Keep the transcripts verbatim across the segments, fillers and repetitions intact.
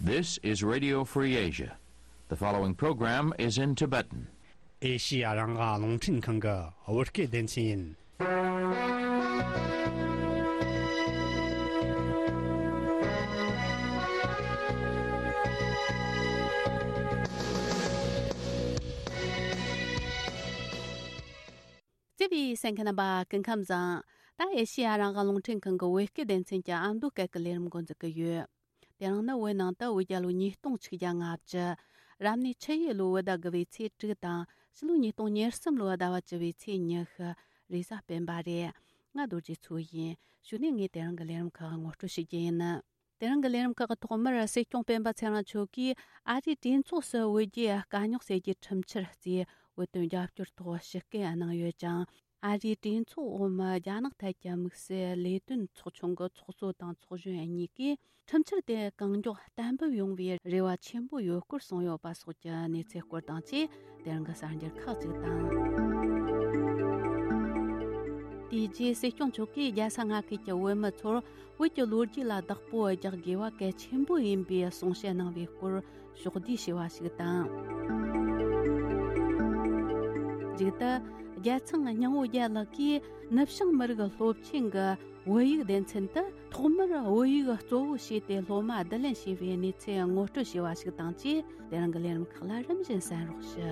This is Radio Free Asia. The following program is in Tibetan. ཨེ་ཤི་ཡ་རང་དབང་རླུང་འཕྲིན་ཁང་གི་བོད་སྐད་སྡེ་ཚན་ཡིན། བརྩེ་བའི་གསན་མཁན་རྣམ་པ་སྐུ་ཁམས་བཟང་། ད་ཨེ་ཤི་ཡ་རང་དབང་རླུང་འཕྲིན་ཁང་གི་བོད་སྐད་སྡེ་ཚན་གྱི་ཨ་མདོ་སྐད་ཀྱི་ལས་རིམ་འགོ་འཛུགས་ཀྱི་ཡོད། དེ་རིང་ནི་བོད་ནང་དུ་བོད་རྒྱལ་ལོ་ཉིས་སྟོང་ཆིག་བརྒྱ་ལྔ་བཅུ། རབ་གནས་ཆུ་ཡོས་ལོའི་བོད་ཟླ་དགུ་བའི་ཚེས་དྲུག་དང་ཕྱི་ལོ་ཉིས་སྟོང་ཉེར་གསུམ་ལོའི་ཟླ་བ་བཅུ་བའི་ཚེས་ཉི་ཤུ། རེས་གཟའ་སྤེན་པ་རེད། ང་རྡོ་རྗེ་མཚོ་ཡིན། གཞུག་ནས་ངས་དེ་རིང་གི་ལས་རིམ་ཁག་ངོ་སྤྲོད་ཞུ་རྒྱུ་ཡིན། དེ་རིང་གི་ལས་རིམ་ཁག་གི་ཐོག་མར་སྲིད་སྐྱོང་སྤེན་པ་ཚེ་རིང་མཆོག་གིས་ཨ་རིའི་གྲོས་ཚོགས་སུ་བོད་རྒྱའི་དཀའ་རྙོག་སེལ་རྒྱུའི་ཁྲིམས་འཆར་གཙོས་བོད་དོན་རྒྱབ་སྐྱོར་ཐོག་ཞུ་སྐུལ་གནང་ཡོད་ཅིང་། ཨ་རིའི་གྲོས་ཚོགས་འོག་མའི་རྒྱ་ནག་ཐད་ཀྱི་དམིགས་བསལ་ལས་དོན་ཚོགས་ཆུང་གི་ཚོགས་གཙོ་དང་ཚོགས་གཞོན་གཉིས་ཀས་ཁྲིམས་འཆར་དེ་གང་མགྱོགས་གཏན་འབེབས་ཡོང་བའི་རེ་བ་ཆེན་པོ་ཡོད་སྐོར་གསུངས་ཡོད་པ་སོགས་ཀྱི་གནས་ཚུལ་སྐོར་དང་བཅས། དེ་རིང་གི་གསར་འགྱུར་ཁག་ཅིག་དང་། དེ་རྗེས་སྲིད་སྐྱོང་མཆོག་གིས་རྒྱལ་ས་མངའ་ཁུལ་གྱི་བོད་མི་ཚོར་བོད་ཀྱི་ལོ་རྒྱུས་ལ་བདག་པོ་རྒྱག་དགོས་པ་གལ་ཆེན་པོ་ཡིན་པའི་གསུང་བཤད་གནང་བའི་སྐོར་ཕྱོགས་བསྡུས་བྱས་པ་ཞིག་དང་། མཇུག་ཏུ། རྒྱལ་ཚང་སྙིང་བོ་རྒྱལ་ལགས་ཀྱིས་ནུབ་བྱང་མི་རིགས་སློབ་ཆེན་གྱི་བོད་ཡིག་སྡེ་ཚན་དུ་ཐོག་མར་བོད་ཡིག་གཙོ་བོ་བྱས་ཏེ་སློབ་མ་བསྡུ་ལེན་བྱས་པའི་གནས་ཚུལ་ངོ་སྤྲོད་བྱས་པ་ཞིག་དང་བཅས། དེ་རིང་གི་ལས་རིམ་ཁག་ལ་རིམ་བཞིན་གསན་རོགས་ཞུ།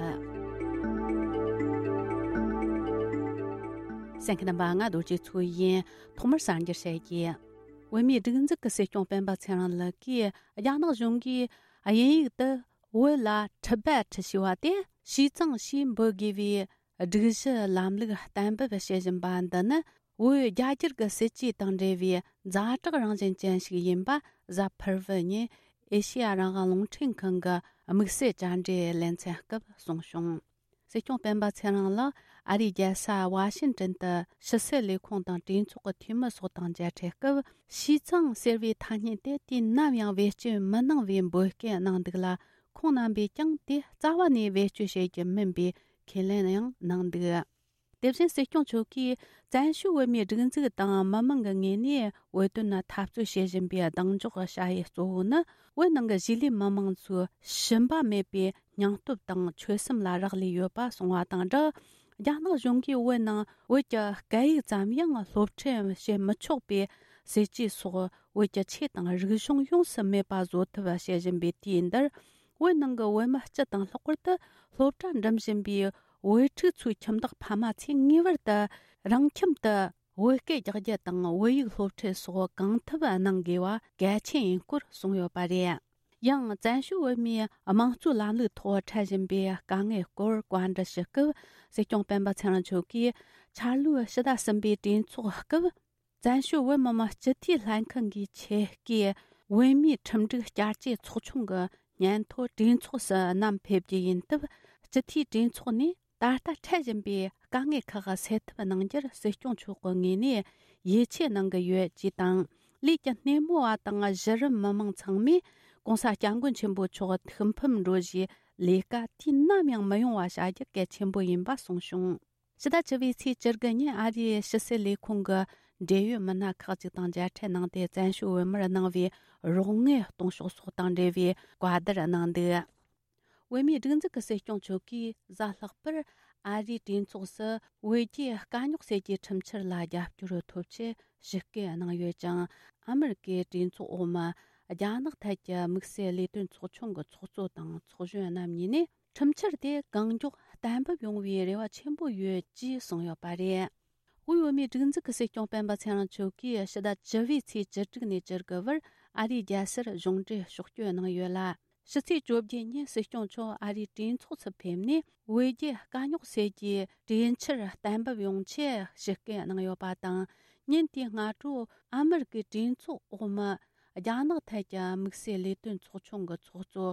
གསན་མཁན་རྣམ་པ། ང་རྡོ་རྗེ་མཚོ་ཡིན། ཐོག་མར་གསར་འགྱུར་བཤད་རྒྱུ། བོད་མིའི་སྒྲིག་འཛུགས་ཀྱི་སྲིད་སྐྱོང་སྤེན་པ་ཚེ་རིང་ལགས་ཀྱིས་རྒྱ་ནག་གཞུང་གིས་དབྱིན་ཡིག་ཏུ་བོད་ལ་ཊི་བེ་ཊི་ཞེས་པ་དེ་ཞི་ཙང་ཞེས་འབོད་དགོས་པའི་སྒྲིག་གཞི་ལམ་ལུགས་གཏན་འབེབས་བྱེད་བཞིན་པ་འདི་ནི། བོད་རྒྱ་སྒྱུར་གྱི་སྲིད་ཇུས་དང་འབྲེལ་བའི་ཛ་དྲག་རང་བཞིན་ཅན་ཞིག་ཡིན་པ་གཟའ་ཕུར་བུ་ཉིན་ཨེ་ཤེ་ཡ་རང་དབང་རླུང་འཕྲིན་ཁང་གི་དམིགས་བསལ་བཅར་འདྲིའི་ལེ་ཚན་སྐབས་གསུངས་བྱུང་། སྲིད་སྐྱོང་སྤེན་པ་ཚེ་རིང་ལགས་ཨ་རིའི་རྒྱལ་ས་ཝ་ཤིན་ཏན་དུ་ཕྱི་སྲིད་ལས་ཁུངས་དང་གྲོས་ཚོགས་ཀྱི་འཐུས་མི་སོགས་དང་མཇལ་འཕྲད་སྐབས། ཞི་ཙང་ཟེར་བའི་ཐ་སྙད་དེ་དུས་ནམ་ཡང་བེད་སྤྱོད་མི་གནང་བའི་འབོད་སྐུལ་གནང་འདུག་ལ། ཁོང་རྣམ་པས་ཀྱང་དེ་རྩ་བ་ནས་བེད་སྤྱོད་བྱེད་རྒྱུ་མིན་པའི་ཁས་ལེན་ཡང་གནང་འདུག། དེ་བཞིན་སྲིད་སྐྱོང་མཆོག་གིས་བཙན་བྱོལ་བོད་མིའི་སྒྲིག་འཛུགས་དང་མི་མང་གི་ངོས་ནས་བོད་དོན་ལ་འཐབ་རྩོད་བྱེད་བཞིན་པའི་གདེང་འཇོག་བྱ་ཡུལ་གཙོ་བོ་ནི། བོད་ནང་གི་གཞིས་ལུས་མི་མང་ཚོའི་ཞུམ་པ་མེད་པའི་སྙིང་སྟོབས་དང་ཆོད་སེམས་ལ་རག་ལས་ཡོད་པ་གསུངས་པ་དང་སྦྲགས། རྒྱ་ནག་གཞུང་གིས་བོད་ནང་བོད་ཀྱི་སྐད་ཡིག་ཙམ་ཡང་སློབ་ཁྲིད་བྱེད་མི་ཆོག་པའི་སྲིད་ཇུས་སོགས། བོད་ཀྱི་ཆོས་དང་རིག་གཞུང་ཡོངས་སུ་མེད་པ་བཟོ་ཐབས་བྱེད་བཞིན་པའི་དུས་འདིར། བོད་ནང་གི་བོད་མི་སྤྱི་དང་ལྷག་པར་དུ་སློབ་གྲྭ་འགྲིམ་བཞིན་པའི་བོད་ཕྲུག་ཚོའི་ཁྱིམ་བདག་ཕ་མ་ཚོས་ངེས་པར་དུ་རང་ཁྱིམ་དུ་བོད་སྐད་རྒྱག་རྒྱུ་དང་བོད་ཡིག་སློབ་ཁྲིད་སོགས་གང་ཐུབ་གནང་དགོས་པ་གལ་ཆེན་ཡིན་སྐོར་གསུངས་ཡོད་པ་རེད། ཡང་བཙན་བྱོལ་བོད་མིའི་དམངས་གཙོའི་ལམ་ལུགས་ཐོག་འཕྲད་བཞིན་པའི་དཀའ་ངལ་སྐོར་བཀའ་འདྲི་ཞུ་སྐབས། སྲིད་སྐྱོང་སྤེན་པ་ཚེ་རིང་མཆོག་གིས་འཆར་ལོའི་ཕྱི་ཟླ་གསུམ་པའི་གྲོས་ཚོགས་སྐབས། བཙན་བྱོལ་བོད་མི་མང་སྤྱི་འཐུས་ལྷན་ཁང་གི་ཆེད་བསྐོས་བོད་མིའི་ཁྲིམས་སྒྲིག་བསྐྱར་བཅོས་ཚོགས་ཆུང་གི་སྙན་ཐོ་གྲོས་ཚོགས་སུ་བསྣམས་ཕེབས་རྒྱུ་ཡིན་སྟབས། སྤྱི་འཐུས་གྲོས་ཚོགས་ནས་ད་ལྟ་འཕྲད་བཞིན་པའི་དཀའ་ངལ་ཁག་སེལ་ཐབས་གནང་རྒྱུར་སྲིད་སྐྱོང་མཆོག་གི་ངོས་ནས་ཡིད་ཆེས་གནང་གི་ཡོད་ཅེས་དང་། ལས་ཀྱི་སྣེ་མོ་བ་དང་གཞི་རིམ་མི་མང་ཚང་མས་༸གོང་ས་༸སྐྱབས་མགོན་ཆེན་པོ་མཆོག་ཐུགས་ཕམ་འགྲོ་བཞིའི་ལས་ཀ་དུས་ནམ་ཡང་མི་ཡོང་བ་བྱ་རྒྱུ་གལ་ཆེན་པོ་ཡིན་པ་གསུངས་བྱུང་། ཕྱི་ཟླ་བཅུ་བའི་ཚེས་བཅུ་དགུ་ཉིན་ཨ་རིའི་ཕྱི་སྲིད་ལས་ཁུངས་ཀྱི་འབྲེལ་ཡོད་མི་སྣ་ཁག་ཅིག་དང་མཇལ་འཕྲད་གནང་སྟེ། བཙན་བྱོལ་བོད་མིར་གནང་བའི་རོགས་དངུལ་གཏོང་ཕྱོགས་སོགས་དང་འབྲེལ་བའི་བཀའ་བསྡུར་གནང་འདུག། བོད་མིའི་སྒྲིག་འཛུགས་ཀྱི་སྲིད་སྐྱོང་མཆོག་གིས་གཟའ་ལྷག་པར་ཨ་རིའི་གྲོས་ཚོགས་སུ་བོད་རྒྱའི་དཀའ་རྙོག་སེལ་རྒྱུའི་ཁྲིམས་འཆར་ལ་རྒྱབ་སྐྱོར་ཐོབ་ཆེད་ཞུ་སྐུལ་གནང་ཡོད་ཅིང་། ཨ་མི་རི་ཀའི་གྲོས་ཚོགས་འོག་མ་རྒྱ་ནག་ཐད་ཀྱི་དམིགས་བསལ་ལས་དོན་ཚོགས་ཆུང་གི་ཚོགས་གཙོ་དང་ཚོགས་གཞོན་རྣམ་གཉིས་ནས། ཁྲིམས་འཆར་དེ་གང་མགྱོགས་གཏན་འབེབས་ཡོང་བའི་རེ་བ་ཆེན་པོ་ཡོད་ཅེས་གསུངས་ཡོད་པ་རེད། དབུས་བོད་མིའི་སྒྲིག་འཛུགས་ཀྱི་སྲིད་སྐྱོང་སྤེན་པ་ཚེ་རིང་མཆོག་གིས་ཕྱི་ཟླ་བཅུ་བའི་ཚེས་བཅུ་དྲུག་ནས་བཅུ་དགུ་བར་ཨ་རིའི་རྒྱལ་སར་གཞུང་འབྲེལ་ཕྱོགས་བསྐྱོད་གནང་ཡོད་ལ། ཕྱི་ཚེས་བཅོ་བརྒྱད་ཉིན་སྲིད་སྐྱོང་མཆོག་ཨ་རིའི་གྲོས་ཚོགས་སུ་ཕེབས་ནས། བོད་རྒྱའི་དཀའ་རྙོག་སེལ་རྒྱུའི་གྲོས་འཆར་གཏན་འབེབས་ཡོང་ཆེད་ཞུ་སྐུལ་གནང་ཡོད་པ་དང་། ཉིན་དེའི་སྔ་དྲོ་ཨ་མི་རི་ཀའི་གྲོས་ཚོགས་འོག་མ་རྒྱ་ནག་ཐད་ཀྱི་དམིགས་བསལ་ལས་དོན་ཚོགས་ཆུང་གི་ཚོགས་གཙོ་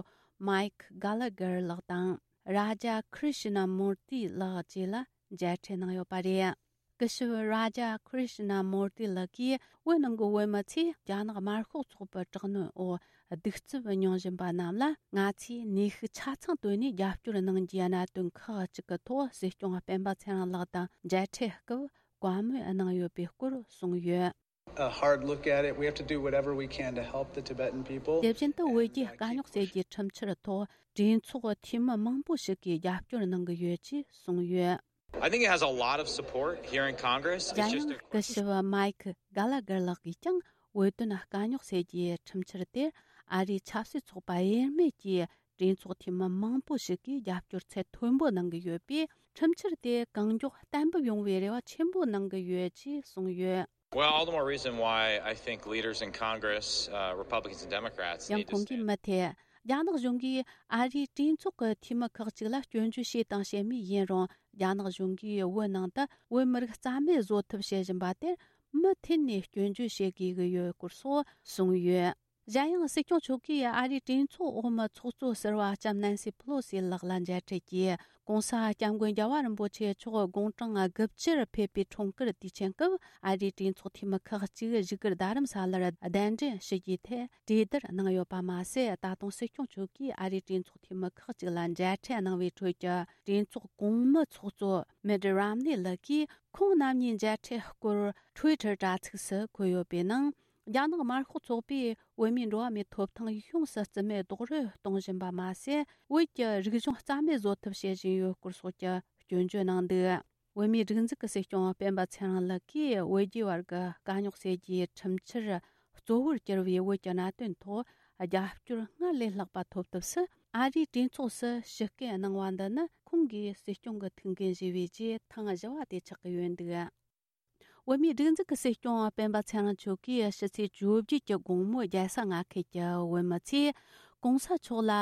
མའིག་གྷ་ལ་གར་ལགས་དང་། རཱ་ཇ་ཁྲི་ཤི་ན་མུར་ཏི་ལགས་བཅས་ལ་མཇལ་འཕྲད་གནང་ཡོད་པ་རེད། སྐུ་ཞབས་རཱ་ཇ་ཁྲི་ཤི་ན་མུར་ཏི་ལགས་ཀྱིས། བོད་ནང་གི་བོད་མི་ཚོས་རྒྱ་ནག་དམར་ཤོག་ཚོགས་པའི་དྲག་གནོན་འོག་གདུག་རྩུབ་མྱོང་བཞིན་པ་རྣམས་ལ། ང་ཚོས་ནུས་ཤུགས་ཆ་ཚང་བཏོན་ནས་རྒྱབ་སྐྱོར་གནང་རྒྱུའི་གནད་དོན་ཁག་ཅིག་གི་ཐོག་སྲིད་སྐྱོང་སྤེན་པ་ཚེ་རིང་ལགས་དང་མཇལ་འཕྲད་སྐབས་བཀའ་མོལ་གནང་ཡོད་པའི་སྐོར་གསུངས་ཡོད། a hard look at it. We have to do whatever we can to help the Tibetan people. དེ་བཞིན་དུ་བོད་རྒྱའི་དཀའ་རྙོག་སེལ་རྒྱུའི་ཁྲིམས་འཆར་ཐོག་གྲོས་ཚོགས་འཐུས་མི་མང་པོ་ཞིག་གིས་རྒྱབ་སྐྱོར་གནང་གི་ཡོད་ཅེས་གསུངས་ཡོད། I think it has a lot of support here in Congress. It's just a སྐུ་ཞབས་མའིཀ་གྷ་ལ་གར་ལགས་ཀྱིས་ཀྱང་བོད་དོན་དཀའ་རྙོག་སེལ་རྒྱུའི་ཁྲིམས་འཆར་དེར་ཨ་རིའི་ཆབ་སྲིད་ཚོགས་པ་དབྱེར་མེད་ཀྱིས་གྲོས་ཚོགས་འཐུས་མི་མང་པོ་ཞིག་གིས་རྒྱབ་སྐྱོར་ཚད་མཐོན་པོ་གནང་གི་ཡོད་པས། ཁྲིམས་འཆར་དེ་གང་མགྱོགས་གཏན་འབེབས་ཡོང་བའི་རེ་བ་ཆེན་པོ་གནང་གི་ཡོད་ཅེས་གསུངས་ཡོད། Well, all the more reason why I think leaders in Congress, uh, Republicans and Democrats, ཡང་ཁོང་གིས་མུ་མཐུད་རྒྱ་ནག་གཞུང་གིས་ཨ་རིའི་གྲོས་ཚོགས་ཀྱི་འཐུས་མི་ཁག་ཅིག་ལ་སྐྱོན་བརྗོད་བྱས་དང་བྱེད་མུས་ཡིན་རུང་། རྒྱ་ནག་གཞུང་གིས་བོད་ནང་དུ་བོད་མི་རིགས་རྩ་མེད་བཟོ་ཐབས་བྱེད་བཞིན་པ་དེར་མུ་མཐུད་ནས་སྐྱོན་བརྗོད་བྱེད་དགོས་ཀྱི་ཡོད་སྐོར་སོགས་གསུངས་ཡོད། གཞན་ཡང་སྲིད་སྐྱོང་མཆོག་གིས་ཨ་རིའི་གྲོས་ཚོགས་འོག་མའི་ཚོགས་གཙོ་ཟུར་པ་ལྕམ་ནན་སི་ཕེ་ལོ་སི་ལགས་ལ་མཇལ་འཕྲད་ཀྱིས། ྋགོང་ས་ྋསྐྱབས་མགོན་རྒྱལ་བ་རིན་པོ་ཆེ་མཆོག་དགུང་གྲངས་དགུ་བཅུར་ཕེབས་པའི་འཁྲུངས་སྐར་དུས་ཆེན་སྐབས། ཨ་རིའི་གྲོས་ཚོགས་འཐུས་མི་ཁག་ཅིག་བཞུགས་སྒར་རྡ་རམ་ས་ལར་གདན་འདྲེན་ཞུ་རྒྱུའི་ཐད་གྲོས་བསྡུར་གནང་ཡོད་པ་མ་ཟད། ད་དུང་སྲིད་སྐྱོང་མཆོག་གིས་ཨ་རིའི་གྲོས་ཚོགས་འཐུས་མི་ཁག་ཅིག་ལ་མཇལ་འཕྲད་གནང་བའི་ཁྲོད་ཀྱི་གྲོས་ཚོགས་གོང་མའི་ཚོགས་གཙོ་མིད་རམ་ནི་ལགས་ཀྱིས་ཁོང་རྣམ་གཉིས་མཇལ་འཕྲད་སྐོར་ཊུའི་ཊར་དྲ་ཚིགས་སུ་འཁོད་ཡོད་པའི་ནང་། རྒྱ་ནག་དམར་ཤོག་ཚོགས་པས་བོད་མིའི་འགྲོ་བ་མིའི་ཐོབ་ཐང་ཡོངས་སུ་རྩིས་མེད་རྡོག་རོལ་གཏོང་བཞིན་པ་མ་ཟད། བོད་ཀྱི་རིག་གཞུང་རྩ་མེད་བཟོ་ཐབས་བྱེད་བཞིན་ཡོད་སྐོར་སོགས་ཀྱི་སྐྱོན་བརྗོད་གནང་འདུག་བོད་མིའི་སྒྲིག་འཛུགས་ཀྱི་སྲིད་སྐྱོང་སྤེན་པ་ཚེ་རིང་ལགས་ཀྱིས་བོད་རྒྱའི་བར་གྱི་དཀའ་རྙོག་སེལ་རྒྱུའི་ཁྲིམས་འཆར་གཙོ་བོར་གྱུར་བའི་བོད་ཀྱི་གནད་དོན་ཐོག་རྒྱབ་སྐྱོར་སྔར་ལས་ལྷག་པ་ཐོབ་ཐབས་སུ། ཨ་རིའི་གྲོས་ཚོགས་སུ་ཞུ་སྐུལ་གནང་བ་འདི་ནི་ཁོང་གིས་སྲིད་སྐྱོང་གི་ཐུགས་འགན་བཞེས་པའི་རྗེས་ཐེངས་བཞི་བ་དེ་ཆགས་ཀྱི་ཡོད་འདུག་བོད་མིའི་སྒྲིག་འཛུགས་ཀྱི་སྲིད་སྐྱོང་སྤེན་པ་ཚེ་རིང་མཆོག་གིས་ཕྱི་ཚེས་བཅོ་བརྒྱད་ཀྱི་དགོང་མོ་རྒྱལ་ས་མངའ་ཁུལ་གྱི་བོད་མི་ཚོས་ྋགོང་ས་མཆོག་ལ་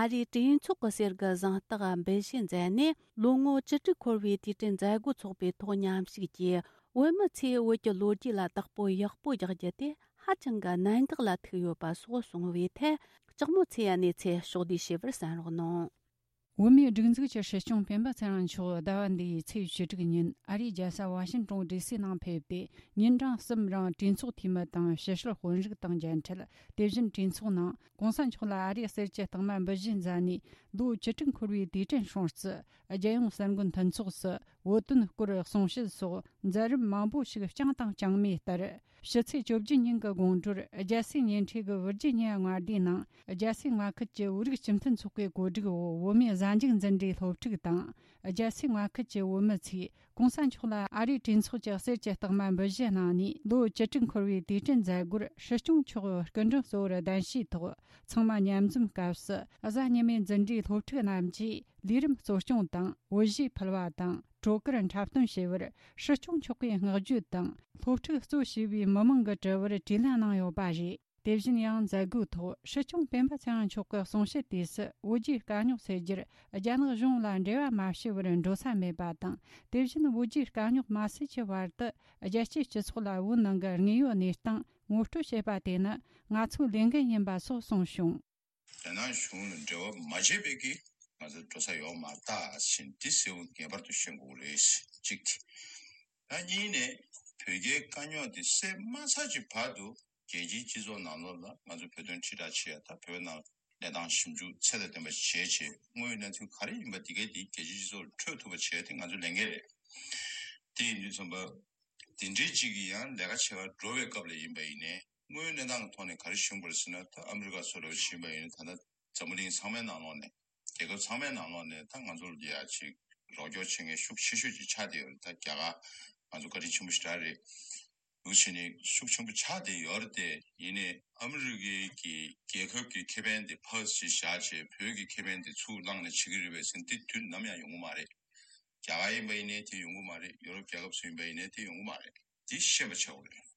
ཨ་རིའི་གྲོས་ཚོགས་ཀྱི་གསེར་གྱི་གཟེངས་རྟགས་འབུལ་བཞེས་མཛད་ནས། ལོ་ངོ་བཅུ་དྲུག་འཁོར་བའི་དུས་དྲན་མཛད་སྒོ་འཚོགས་པའི་ཐོག་མཉམ་ཞུགས་ཀྱིས། བོད་མི་ཚོས་བོད་ཀྱི་ལོ་རྒྱུས་ལ་བདག་པོ་ཡག་པོ་རྒྱག་རྒྱུ་དེ་ཧ་ཅང་གི་གནད་འགག་ལ་ཐུག་ཡོད་པ་སོགས་གསུངས་པའི་ཐད། ལྕགས་མོ་ཚེ་ཡ་གནས་ཚུལ་ཕྱོགས་བསྡུས་ཞུས་པར་གསན་རོགས་གནང་། བོད་མིའི་སྒྲིག་འཛུགས་ཀྱི་སྲིད་སྐྱོང་སྤེན་པ་ཚེ་རིང་མཆོག་ཟླ་བ་འདིའི་ཚེས་བཅུ་དྲུག་ཉིན་ཨ་རིའི་རྒྱལ་ས་ཝ་ཤིང་ཏོན་ཌི་སི་ནང་ཕེབས་ཏེ། ཉིན་གྲངས་གསུམ་རིང་གྲོས་ཚོགས་འཐུས་མི་དང་ཕྱི་སྲིད་དཔོན་རིགས་དང་མཇལ་འཕྲད། དེ་བཞིན་གྲོས་ཚོགས་ནང་ྋགོང་ས་མཆོག་ལ་ཨ་རིའི་གསེར་གྱི་རྟགས་མ་འབུལ་བཞེས་མཛད་ནས། ལོ་བཅུ་དྲུག་འཁོར་བའི་དུས་དྲན་སྲུང་བརྩི། རྒྱལ་ཡོངས་གསར་འགོད་མཐུན་ཚོགས་སུ་བོད་དོན་སྐོར་གསུང་བཤད་སོགས་མཛད་རིམ་མང་པོ་ཞིག་བསྐྱངས་དང་བསྐྱངས་མུས་ལྟར། ཕྱི་ཚེས་བཅོ་བརྒྱད་ཉིན་གྱི་དགོང་དྲོར་རྒྱལ་སའི་ཉེ་འཁྲིས་ཀྱི་ཝིར་ཇི་ཉི་ཡ་མངའ་སྡེའི་ནང་། རྒྱལ་སའི་མངའ་ཁུལ་གྱི་བོད་རིགས་སྤྱི་མཐུན་ཚོགས་པའི་གོ་སྒྲིག་འོག་བོད་མིའི་གཟའ་མཇུག་འཛིན་གྲྭའི་སློབ་ཕྲུག་དང་། རྒྱལ་སའི་མངའ་ཁུལ་གྱི་བོད་མི་ཚོས་ྋགོང་ས་མཆོག་ལ་ཨ་རིའི་གྲོས་ཚོགས་ཀྱི་གསེར་གྱི་རྟགས་མ་འབུལ་བཞེས་གནང་ནས། ལོ་བཅུ་དྲུག་འཁོར་བའི་དུས་དྲན་མཛད་སྒོར་སྲིད་སྐྱོང་མཆོག་སྐུ་མགྲོན་གཙོ་བོར་གདན་ཞུས་ཐོག་ཚང་མ་མཉམ་འཛོམས་སྐབས་སུ། གཟའ་ཉི་མའི་འཛིན་གྲྭའི་སློབ་ཕྲུག་རྣམས་ཀྱིས་ལས་རིམ་གཙོ་སྐྱོང་དང་། བོད་གཞས་ཕུལ་བ་དང་། བྲོ་གར་འཁྲབ་སྟོན་བྱས་པར། སྲིད་སྐྱོང་མཆོག་གིས་བསྔགས་བརྗོད་དང་། སློབ་ཕྲུག་གཙོ་བྱས་པའི་མི་མང་གི་དྲི་བར་དྲིས་ལན་གནང་ཡོད་པ་རེད། དེ་བཞིན་ཡང་མཛད་སྒོའི་ཐོག་སྲིད་སྐྱོང་སྤེན་པ་ཚེ་རིང་མཆོག་གི་གསུང་བཤད་དུས་སུ། བོད་རྒྱའི་དཀའ་རྙོག་སེལ་རྒྱུར་རྒྱ་ནག་གཞུང་ལ་འབྲེལ་བ་མ་བྱས་པར་འགྲོ་ས་མེད་པ་དང་། དེ་བཞིན་བོད་རྒྱའི་དཀའ་རྙོག་མ་སེལ་གྱི་བར་དུ། རྒྱལ་སྤྱིའི་སྤྱི་ཚོགས་ལ་བོད་ནང་གི་དངོས་ཡོད་གནས་སྟངས་ངོ་སྤྲོད་བྱེད་པ་དེ་ནི་ང་ཚོའི་ལས་འགན་ཡིན་པ་སོགས་གསུངས་བྱུང་། རྒྱ་ནག་གཞུང་ལ་འབྲེལ་བ་མ་བྱས་པའི་གི་ང་ཚོ་འགྲོ་ས་ཡོད་མ་རེད་ད་ཟེར་འདི་གསལ་པོ་ངེས་པར་དུ་ཤེས་དགོས་རེད། གཅིག་དེ། ད་གཉིས་ནས་བོད་རྒྱའི་དཀའ་རྙོག་འདི་སེལ་མ་ཚར་གྱི་བར་དུ་རྒྱལ་སྤྱིའི་སྤྱི་ཚོགས་ནང་ལོགས་ལ་ང་ཚོ་བོད་དོན་ཁྲིད་བསྒྲགས་བྱེད་ཡ་ད་བོད་ནང་གནས་སྟངས་ཞིབ་འཇུག་ཚད་དང་ལྡན་པ་ཞིག་བྱས་བྱས་དངོས་ཡོད་གནས་ཚུལ་ག་རེ་ཡིན་པ་འདི་གའི་འདི་རྒྱལ་སྤྱིའི་སྤྱི་ཚོགས་ལ་འཕྲོད་ཐུབ་པ་བྱས་ཏེ་ང་ཚོའི་ལས་འགན་རེད། དེ་ཡིན་དུས་ཙམ་པ། དེ་འདྲའི་གཅིག་གིས་ཡང་ལས་ཀ་བྱེད་པར་འགྲོ་བའི་སྐབས་ལ་ཡིན་པ་ཡིན་ནའི་དངོས་ཡོད་གནས་སྟངས་ཀྱི་ཐོག་ནས་ག་རེ་ཞུ་དགོས་རེད་ཟེར་ན། ད་ཨ་མི་རི་ཀ་སོགས་ལ་ཕྱིན་པ་ཡིན་ན། ད་ལྟ་འཛམ་བུ་གླིང་ཚང་མའི་ནང་ལོགས་ནས་རྒྱལ་ཁབ་ཚང་མའི་ནང་ལོགས་ནས་ད་ང་ཚོར་ཡ་ཅིག་རོགས་སྐྱོར་བྱེད་མཁན་ཤུགས་ཆེ་ཤོས་ཅིག་ཆགས་བསྡད་ཡོད་རེད། ད་རྒྱ་གར་ང་ཚོ་བཀའ་དྲིན་ཆེན་པོ་ཞེ་དྲག་རེད། འདུག་བྱས་ནས་ཤུགས་ཆེན་པོ་ཆགས་བསྡད་ཡོད་རེད་དེ། ཡིན་ནའི་ཨ་མི་རི་ཀའི་གི་རྒྱལ་ཁབ་ཀྱི་ཁེ་ཕན་དེ་ཕར་ཅིག་བཞག་བྱས་བོད་ཀྱི་ཁེ་ཕན་དེ་ཚུར་བླངས་ནས་བྱེད་ཀྱི་རེད་པས་ཟེར་ན་དེ་དུས་ནམ་ཡང་ཡོང་གི་མ་རེད། རྒྱ་གར་ཡིན་པ་ཡིན་ནའི་དེ་ཡོང་གི་མ་རེད། ཡོ་རོབ་རྒྱལ་ཁབ་ཚོ་ཡིན་པ་ཡིན་ནའི་དེ་ཡོང་གི་མ་རེད། དེ་ཤེས་པ་ཆགས་དགོས་རེད།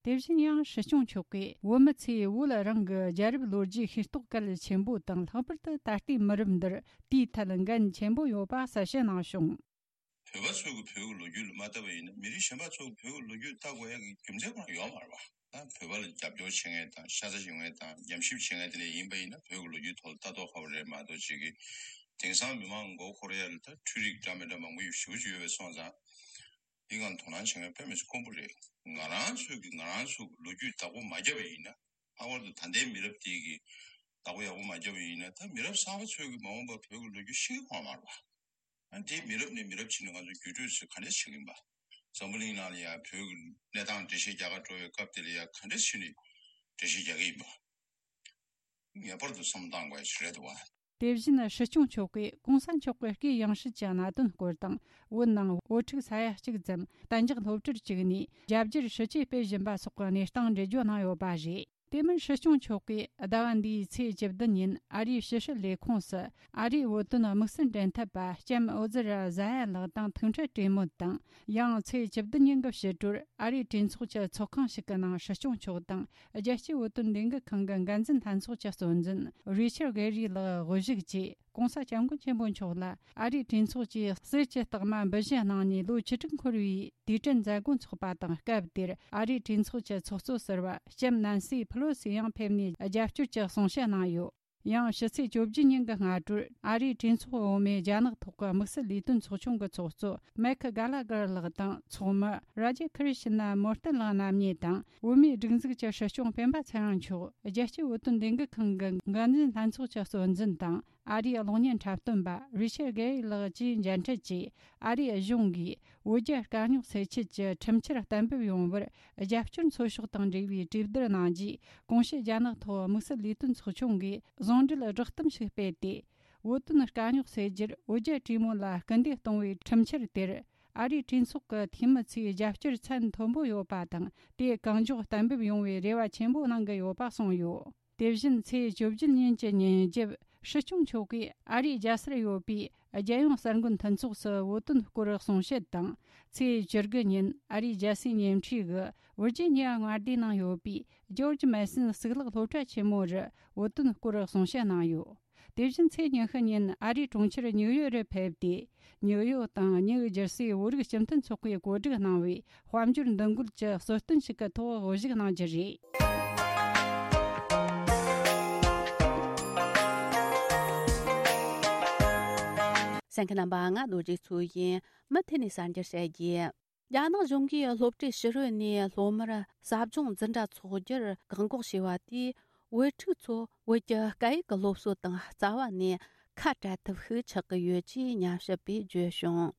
དེ་བཞིན་ཡང་སྲིད་སྐྱོང་མཆོག་གིས་བོད་མི་ཚོས་བོད་རང་གི་རྒྱལ་རབས་ལོ་རྒྱུས་ཤེས་རྟོགས་གལ་ཆེན་པོ་དང་། ལྷག་པར་དུ་ད་ལྟའི་མི་རབས་འདིར་དེའི་ཐད་འགན་ཆེན་པོ་ཡོད་པ་གསལ་བཤད་གནང་བྱུང་། བོད་པ་ཚོས་ཀྱི་བོད་ཀྱི་ལོ་རྒྱུས་ལ་མ་ལྟ་བ་ཡིན་ན། མི་རིགས་གཞན་པ་ཚོས་ཀྱི་བོད་ཀྱི་ལོ་རྒྱུས་ལྟ་དགོས་ཡ་གི་རྒྱུ་མཚན་ཁོ་རང་ཡོད་མ་རེད་པ། ད་བོད་པ་ལ་རྒྱབ་སྐྱོར་བྱེད་མཁན་དང་། ཤ་ཚ་ཡོང་མཁན་དང་། ཉམས་ཞིབ་བྱེད་མཁན་དེ་འདྲ་ཡིན་པ་ཡིན་ན། བོད་ཀྱི་ལོ་རྒྱུས་ཐོག་ལ་ལྟ་རྟོག་ཁ་པོ་རེད་མ་གཏོགས། ཅིག་གི་དེང་སང་མི་མང་མགོ་འཁོར་ཡ་ལ་ད་འཕྲུལ་རིག་འདྲ་མི་འདྲ་མང་པོ་ཞེ་པོ་ཅིག་ཡོད་པ་སོང་ཙང་། དེ་སྒང་དོ་སྣང་བྱེད་མཁན་དཔེ་མི་སྲིད་དཀོན་པོ་རེད། ང་རང་ཚོས་ཀྱི་ང་རང་ཚོ་གི་ལོ་རྒྱུས་བདག་པོ་མ་བརྒྱབ་པ་ཡིན་ན། ལྷག་པར་དུ་ད་ལྟའི་མི་རབས་དེ་གི་བདག་པོ་ཡག་པོ་མ་བརྒྱབ་པ་ཡིན་ན། ད་མི་རབས་གསར་པ་ཚོས་ཀྱི་མ་འོངས་པར་བོད་ཀྱི་ལོ་རྒྱུས་ཤེས་ཀྱི་ཡོད་མ་རེད་པ། ཨ། དེ་མི་རབས་ནས་མི་རབས་ཕྱིན་ནས་ང་ཚོ་བརྒྱུད་སྤྲོད་ཚོས་ག་འདྲས་བྱེད་ཀྱི་ཡིན་པ། འཛམ་བུ་གླིང་ནང་ལ་ཡང་བོད་ཀྱི་གནས་སྟངས་འགྲེལ་བཤད་རྒྱག་ག་འགྲོ་བའི་སྐབས་དེ་ལ་ཡང་ག་འདྲ་བྱས་ནས་འགྲེལ་བཤད་རྒྱག་གི་ཡིན་པ། ངེས་པར་དུ་བསམ་བློ་བཏང་དགོས་ཡ་ཞིག་རེད་འདུག་བ། དེ་བཞིན་སྲིད་སྐྱོང་མཆོག་གིས་གོང་ས་མཆོག་གི་སྐུའི་ཡང་སྲིད་ཀྱི་གནད་དོན་སྐོར་དང་། བོད་ནང་བོད་ཕྲུག་ས་ཡ་གཅིག་ཙམ་གཏན་འཇགས་སློབ་གྲྭར་བཅུག་ནས་རྒྱ་སྒྱུར་ཞི་བྱེད་སྤེལ་བཞིན་པ་སོགས་ཀྱི་གནས་སྟངས་འགྲེལ་བརྗོད་གནང་ཡོད་པ་རེད། དེ་མིན་སྲིད་སྐྱོང་མཆོག་གིས་ཟླ་བ་འདིའི་ཚེས་བཅུ་བདུན་ཉིན་ཨ་རིའི་ཕྱི་སྲིད་ལས་ཁུངས་སུ་ཨ་རིའི་བོད་དོན་དམིགས་བསལ་འབྲེལ་མཐུད་པ་ལྕམ་ཨོ་ཛི་ར་ཟ་ཡ་ལགས་དང་ཐུག་འཕྲད་གྲོས་མོལ་དང་། ཡང་ཚེས་བཅུ་བདུན་ཉིན་གྱི་ཕྱི་དྲོར་ཨ་རིའི་གྲོས་ཚོགས་ཀྱི་ཚོགས་ཁང་ཞིག་གི་ནང་སྲིད་སྐྱོང་མཆོག་དང་རྒྱལ་སྤྱིའི་བོད་དོན་ལས་འགུལ་ཁང་གི་འགན་འཛིན་ལྷན་ཚོགས་ཀྱི་གཙོ་འཛིན་རི་ཆར་གྷེ་རི་ལགས་དབུ་བཞུགས་ཀྱིས་གོང་ས་སྐྱབས་མགོན་ཆེན་པོ་མཆོག་ལ་ཨ་རིའི་གྲོས་ཚོགས་ཀྱིས་གསེར་གྱི་རྟགས་མ་འབུལ་བཞེས་གནང་ནས་ལོ་བཅུ་དྲུག་འཁོར་བའི་དུས་དྲན་མཛད་སྒོ་འཚོགས་པ་དང་། སྐབས་དེར་ཨ་རིའི་གྲོས་ཚོགས་ཀྱི་ཚོགས་གཙོ་ཟུར་པ་ལྕམ་ནན་སི་ཕེ་ལོ་སི་ཡང་ཕེབས་ནས་རྒྱབ་སྐྱོར་གྱི་གསུང་བཤད་གནང་ཡོད། ཡང་ཕྱི་ཚེས་བཅོ་བརྒྱད་ཉིན་གྱི་སྔ་དྲོར་ཨ་རིའི་གྲོས་ཚོགས་འོག་མའི་རྒྱ་ནག་ཐོག་གི་དམིགས་བསལ་ལས་དོན་ཚོགས་ཆུང་གི་ཚོགས་གཙོ་མེག་གྷ་ལ་གྷར་ལགས་དང་། ཚོགས་མི་ར་ཇེ་ཁི་རི་ཤི་ན་མོར་ཏན་ལགས་རྣམ་གཉིས་དང་། བོད་མིའི་སྒྲིག་འཛུགས་ཀྱི་སྲིད་སྐྱོང་སྤེན་པ་ཚེ་རིང་མཆོག་རྒྱལ་སྤྱིའི་བོད་དོན་ལས་འགུལ་ཁང་གི་འགན་འཛིན་ལྷན་ཚོགས་ཀྱི་གཙོ་འཛིན་དང་། ཨ་རིའི་གློག་བརྙན་འཁྲབ་སྟོན་པ་རི་ཆར་གྷེ་རི་ལགས་བཅས་མཇལ་འཕྲད་ཀྱིས། ཨ་རིའི་གཞུང་གིས་བོད་རྒྱ་དཀའ་རྙོག་སེལ་ཆེད་ཀྱི་ཁྲིམས་འཆར་གཏན་འབེབས་ཡོང་བར་རྒྱབ་སྐྱོར་འཚོལ་ཕྱོགས་དང་འབྲེལ་བའི་གྲོས་བསྡུར་གནང་རྗེས། གོང་ཞུས་རྒྱ་ནག་ཐོག་དམིགས་བསལ་ལས་དོན་ཚོགས་ཆུང་གིས་ཟུང་འབྲེལ་བསྒྲགས་གཏམ་ཞིག་སྤེལ་ཏེ། བོད་དོན་དཀའ་རྙོག་སེལ་རྒྱུར་བོད་རྒྱ་གྲོས་མོལ་ལ་སྐུལ་འདེད་གཏོང་བའི་ཁྲིམས་འཆར་དེར། ཨ་རིའི་གྲོས་ཚོགས་ཀྱི་འཐུས་མི་ཚོས་རྒྱབ་སྐྱོར་ཚད་མཐོན་པོ་ཡོད་པ་དང་། དེ་གང་མགྱོགས་གཏན་འབེབས་ཡོང་བའི་རེ་བ་ཆེན་པོ་གནང་གི་ཡོད་པ་གསུངས་ཡོད། དེ་བཞིན་ཚེས་བཅུ་བརྒྱད་ཉིན་གྱི་ཉིན་རྒྱབ་སྲིད་སྐྱོང་མཆོག་གིས་ཨ་རིའི་རྒྱལ་སར་ཡོད་པའི་རྒྱལ་ཡོངས་གསར་འགོད་མཐུན་ཚོགས་སུ་བོད་དོན་སྐོར་གསུང་བཤད་དང་། ཚེས་བཅུ་དགུ་ཉིན་ཨ་རིའི་རྒྱལ་སའི་ཉེ་འཁྲིས་ཀྱི་ཝིར་ཇི་ནི་ཡ་མངའ་སྡེའི་ནང་ཡོད་པའི་ཇོརྗ་མེ་སོན་གཙུག་ལག་སློབ་གྲྭ་ཆེན་མོ་རུ་བོད་དོན་སྐོར་གསུང་བཤད་གནང་ཡོད། དེ་བཞིན་ཚེས་ཉི་ཤུ་ཉིན་ཨ་རིའི་གྲོང་ཁྱེར་ཉིའུ་ཡོག་རུ་ཕེབས་ཏེ། ཉིའུ་ཡོག་དང་ཉིའུ་ཇར་སིའི་བོད་རིགས་སྤྱི་མཐུན་ཚོགས་པས་གོ་སྒྲིག་གནང་བའི་དཔལ་འབྱོར་འདུ་འགོད་ཀྱི་གསོལ་སྟོན་ཞིག་གི་ཐོག་དབུ་བཞུགས་གནང་རྒྱུ་རེད། གསན་མཁན་རྣམ་པ། ང་རྡོ་རྗེ་མཚོ་ཡིན། མུ་མཐུད་ནས་གསར་འགྱུར་བཤད་རྒྱུ། རྒྱ་ནག་གཞུང་གིས་སློབ་གྲྭའི་ཕྱི་རོལ་ནས་སློབ་མར་ཟབ་སྦྱོང་འཛིན་གྲྭ་འཚོགས་རྒྱུར་བཀག་འགོག་བྱས་པ་དེས། བོད་ཕྲུག་ཚོ་བོད་ཀྱི་སྐད་ཡིག་གི་སློབ་གསོ་དང་རྩ་བ་ནས་ཁ་བྲལ་ཐབས་ཤིག་ཆགས་ཀྱི་ཡོད་ཅེས་ཉམས་ཞིབ་པས་བརྗོད་བྱུང་།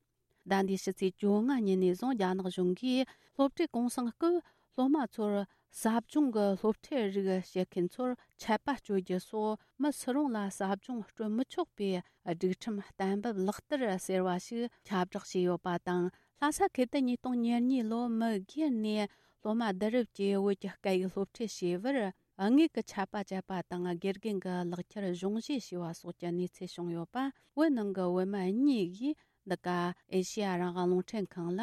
ཟླ་འདིའི་ཕྱི་ཚེས་བཅོ་ལྔ་ཉིན་ནས་བཟུང་རྒྱ་ནག་གཞུང་གིས་སློབ་གྲྭའི་གུང་སེང་སྐབས་སློབ་མ་ཚོར་ཟབ་སྦྱོང་གི་སློབ་ཁྲིད་རིགས་བྱེད་མཁན་ཚོར་ཆད་པ་གཅོད་རྒྱུ་སོགས། མི་སུ་རུང་ལ་ཟབ་སྦྱོང་སྤྲོད་མི་ཆོག་པའི་སྒྲིག་ཁྲིམས་གཏན་འབེབས་ལག་བསྟར་ཟེར་བ་ཞིག་ཁྱབ་བསྒྲགས་བྱས་ཡོད་པ་དང་། ལྷ་ས་ཁུལ་དུ་ཉིས་སྟོང་ཉེར་གཉིས་ལོར་མི་སྒེར་ནས་སློབ་མ་བསྡུ་རུབ་ཀྱིས་བོད་ཀྱི་སྐད་ཡིག་སློབ་ཁྲིད་བྱས་པར་དངུལ་གྱི་ཆད་པ་བཅད་པ་དང་། དགེ་རྒན་གྱི་ལག་ཁྱེར་གཞུང་བཞེས་བྱས་པ་སོགས་ཀྱི་གནས་ཚུལ་བྱུང་ཡོད་པ། བོད་ནང་གི་བོད་མི་གཉིས་ཀྱིས་འདི་ག་ཨེ་ཤེ་ཡ་རང་དབང་རླུང་འཕྲིན་ཁང་ལ་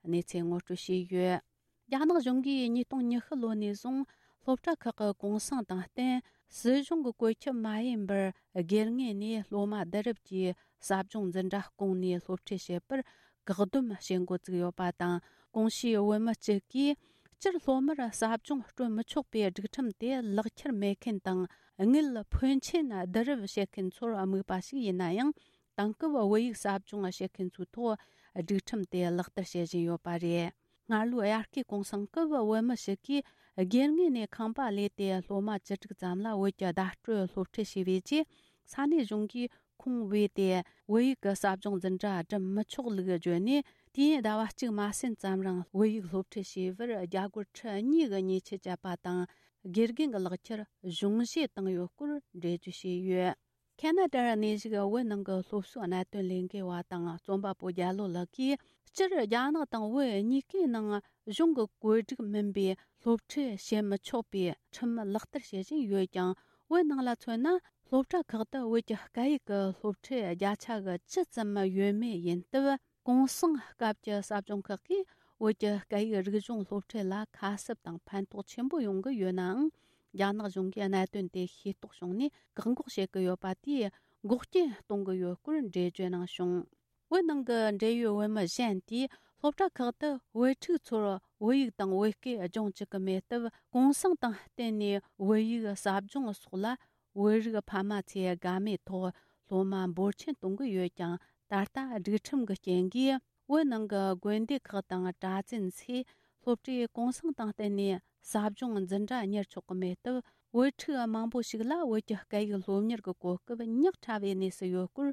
གནས་ཚུལ་ངོ་སྤྲོད་བྱས་ཡོད། རྒྱ་ནག་གཞུང་གིས་ཉིས་སྟོང་ཉི་ཤུ་ལོ་ནས་བཟུང་སློབ་གྲྭ་ཁག་གི་གུང་སེང་དང་བསྟུན། སྲིད་གཞུང་གི་བཀོད་ཁྱབ་མ་ཡིན་པར་སྒེར་ངོས་ནས་སློབ་མ་བསྡུ་རུབ་ཀྱིས་ཟབ་སྦྱོང་འཛིན་གྲྭ་བསྐོངས་ནས་སློབ་ཁྲིད་བྱེད་པར་བཀག་སྡོམ་བྱེད་འགོ་བཙུགས་ཡོད་པ་དང་། གོང་ཞུས་བོད་མི་གཅིག་གིས་སྤྱིར་སློབ་མར་ཟབ་སྦྱོང་སྤྲོད་མི་ཆོག་པའི་སྒྲིག་ཁྲིམས་དེ་ལག་ཁྱེར་མེད་མཁན་དང་། དངུལ་ཕོན་ཆེན་བསྡུ་རུབ་བྱེད་མཁན་ཚོར་དམིགས་པ་ཞིག་ཡིན་ན་ཡང་། དེང་སྐབས་བོད་ཡིག་ཟབ་སྦྱོང་བྱེད་མཁན་ཚོའི་ཐོག་སྒྲིག་ཁྲིམས་དེ་ལག་བསྟར་བྱེད་བཞིན་ཡོད་པ་རེད། སྔར་ལོའི་དབྱར་ཁའི་གུང་སེང་སྐབས་བོད་མི་ཞིག་གིས་སྒེར་ངོས་ནས་ཁང་པ་གླས་ཏེ་སློབ་མ་བཅུ་དྲུག་ཙམ་ལ་བོད་ཀྱི་བརྡ་སྤྲོད་སློབ་ཁྲིད་བྱས་པའི་རྗེས། ས་གནས་གཞུང་གིས་ཁོང་བོས་ཏེ་བོད་ཡིག་གི་ཟབ་སྦྱོང་འཛིན་གྲྭ་འགྲིམ་མི་ཆོག་ལུགས་བརྗོད་ནས། དུས་ཡུན་ཟླ་བ་གཅིག་མ་ཟིན་ཙམ་རིང་བོད་ཡིག་སློབ་ཁྲིད་བྱས་པར་རྒྱ་སྒོར་ཁྲི་གཉིས་ཀྱི་ཉེས་ཆད་བཅད་པ་དང་། དགེ་རྒན་གྱི་ལག་ཁྱེར་གཞུང་བཞེས་བཏང་ཡོད་སྐོར་འགྲེལ་བརྗོད་བྱས་ཡོད། ཁེ་ན་ཌར་གནས་བཞུགས་བོད་ནང་གི་སློབ་གསོའི་གནད་དོན་ལས་འགུལ་བ་དང་རྩོམ་པ་པོ་རྒྱ་ལོ་ལགས་ཀྱིས། སྤྱིར་རྒྱ་ནག་དང་བོད་གཉིས་ཀའི་ནང་གཞུང་གི་བཀོད་སྒྲིག་མིན་པའི་སློབ་ཁྲིད་བྱེད་མི་ཆོག་པའི་ཁྲིམས་ལག་བསྟར་བྱེད་བཞིན་ཡོད་ཀྱང་། བོད་ནང་ལ་མཚོན་ན། སློབ་གྲྭ་ཁག་ཏུ་བོད་ཀྱི་སྐད་ཡིག་གི་སློབ་ཁྲིད་བརྒྱ་ཆ་གི་ཅི་ཙམ་ཡོད་མེད་ཡིན་སྟབས། གུང་སེང་སྐབས་ཀྱི་ཟབ་སྦྱོང་ཁག་གིས་བོད་ཀྱི་སྐད་ཡིག་རིག་གཞུང་སློབ་ཁྲིད་ལ་ཁ་གསབ་དང་ཕན་ཐོགས་ཆེན་པོ་ཡོང་གི་ཡོད་ནའང་། རྒྱ་ནག་གཞུང་གིས་གནད་དོན་དེ་ཤེས་རྟོགས་བྱུང་ནས་བཀག་འགོག་བྱེད་ཀྱི་ཡོད་པ་དེས་འགོག་རྐྱེན་གཏོང་གི་ཡོད་སྐོར་འགྲེལ་བརྗོད་གནང་བྱུང་། བོད་ནང་གི་འབྲེལ་ཡོད་བོད་མི་གཞན་དེས་སློབ་གྲྭ་ཁག་ཏུ་བོད་ཕྲུག་ཚོར་བོད་ཡིག་དང་བོད་སྐད་སྦྱོང་བཅུག་གི་མེད་སྟབས། གུང་སེང་དང་བསྟུན་ནས་བོད་ཡིག་ཟབ་སྦྱོང་སོགས་ལ་བོད་རིགས་ཕ་མ་ཚོས་དགའ་མོས་ཐོག་སློབ་མ་འབོར་ཆེན་གཏོང་གི་ཡོད་ཀྱང་། ད་ལྟ་སྒྲིག་ཁྲིམས་ཀྱི་རྐྱེན་གྱིས་བོད་ནང་གི་དགོན་སྡེ་ཁག་དང་གྲྭ་བཙུན་ཚོས་སློབ་གྲྭའི་གུང་སེང་དང་བསྟུན་ནས་ཟབ་སྦྱོང་འཛིན་གྲྭ་གཉེར་ཆོག་གི་མེད་སྟབས། བོད་ཕྲུག་མང་པོ་ཞིག་ལ་བོད་ཀྱི་སྐད་ཡིག་སློབ་གཉེར་གྱི་གོ་སྐབས་ཉག་ཕྲ་བའི་གནས་སུ་ཡོད་སྐོར་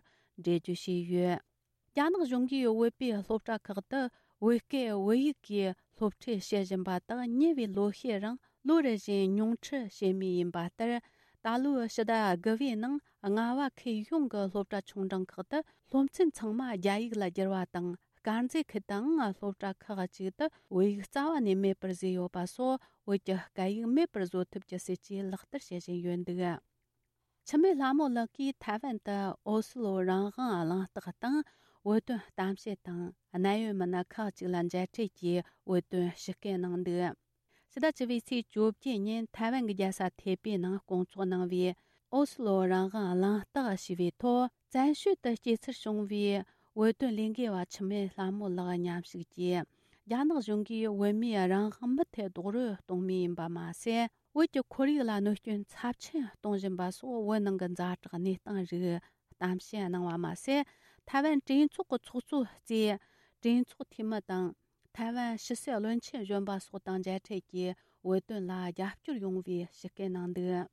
འགྲེལ་བརྗོད་བྱས་ཡོད། རྒྱ་ནག་གཞུང་གིས་བོད་པའི་སློབ་གྲྭ་ཁག་ཏུ་ བོད་སྐད་བོད་ཡིག་གིས་སློབ་ཁྲིད་བྱེད་བཞིན་པ་དག་ཉེ་བའི་ལོ་ཤས་རིང་ལོ་རེ་བཞིན་ཉུང་འཕྲི་བྱེད་མུས་ཡིན་པ་ལྟར། ད་ལོའི་ཕྱི་ཟླ་དགུ་པའི་ནང་རྔ་བ་ཁུལ་ཡོངས་ཀྱི་སློབ་གྲྭ་ཆུང་འབྲིང་ཁག་ཏུ་སློབ་ཚན་ཚང་མ་རྒྱ་ཡིག་ལ་བསྒྱུར་བ་དང་། དཀར་མཛེས་ཁུལ་དུའང་སློབ་གྲྭ་ཁག་ཅིག་ཏུ་བོད་ཡིག་རྩ་བ་ནས་མེད་པར་བཟོས་ཡོད་པ་སོགས། བོད་ཀྱི་སྐད་ཡིག་མེད་པར་བཟོ་ཐབས་ཀྱི་སྲིད་ཇུས་ལག་བསྟར་བྱེད་བཞིན་ཡོད་འདུག་འཆི་མེད་ལྷ་མོ་ལགས་ཀྱིས་ཐའེ་ཝན་དུ་ཨོ་སི་ལོ་རང་དབང་གླེང་སྟེགས་དང་། བོད་དོན་གཏམ་བཤད་དང་གནད་ཡོད་མི་སྣ་ཁག་ཅིག་ལ་མཇལ་འཕྲད་ཀྱིས་བོད་དོན་ཞུ་སྐུལ་གནང་འདུག་ཕྱི་ཟླ་བཅུ་པའི་ཚེས་བཅོ་བརྒྱད་ཉིན་ཐའེ་ཝན་གྱི་རྒྱལ་ས་ཐེ་པེ་ནང་སྐོང་ཚོགས་གནང་བའི་ཨོ་སི་ལོ་རང་དབང་གླེང་སྟེགས་ཞེས་པའི་ཐོག་བཙན་བྱོལ་དུ་སྐྱེས་འཚར་བྱུང་བའི་བོད་དོན་ལས་འགུལ་བ་འཆི་མེད་ལྷ་མོ་ལགས་མཉམ་ཞུགས་ཀྱིས། རྒྱ་ནག་གཞུང་གིས་བོད་མིའི་རང་དབང་མུ་མཐུད་རྡོག་རོལ་གཏོང་མུས་ཡིན་པ་མ་ཟད། བོད་ཀྱི་ཁོར་ཡུག་ལ་གནོད་སྐྱོན་ཚབས་ཆེན་གཏོང་བཞིན་པ་སོགས། བོད་ནང་གི་ཛ་དྲག་གནས་སྟངས་རིགས་གཏམ་བཤད་གནང་བ་མ་ཟད། ཐའེ་ཝན་གྲོས་ཚོགས་ཀྱི་ཚོགས་གཙོ་གཙོས་གྲོས་ཚོགས་འཐུས་མི་དང་། ཐའེ་ཝན་ཕྱི་སྲིད་བློན་ཆེན་གཞོན་པ་སོགས་དང་མཇལ་འཕྲད་ཀྱིས་བོད་དོན་ལ་རྒྱབ་སྐྱོར་ཡོང་བའི་ཞུ་སྐུལ་གནང་འདུག་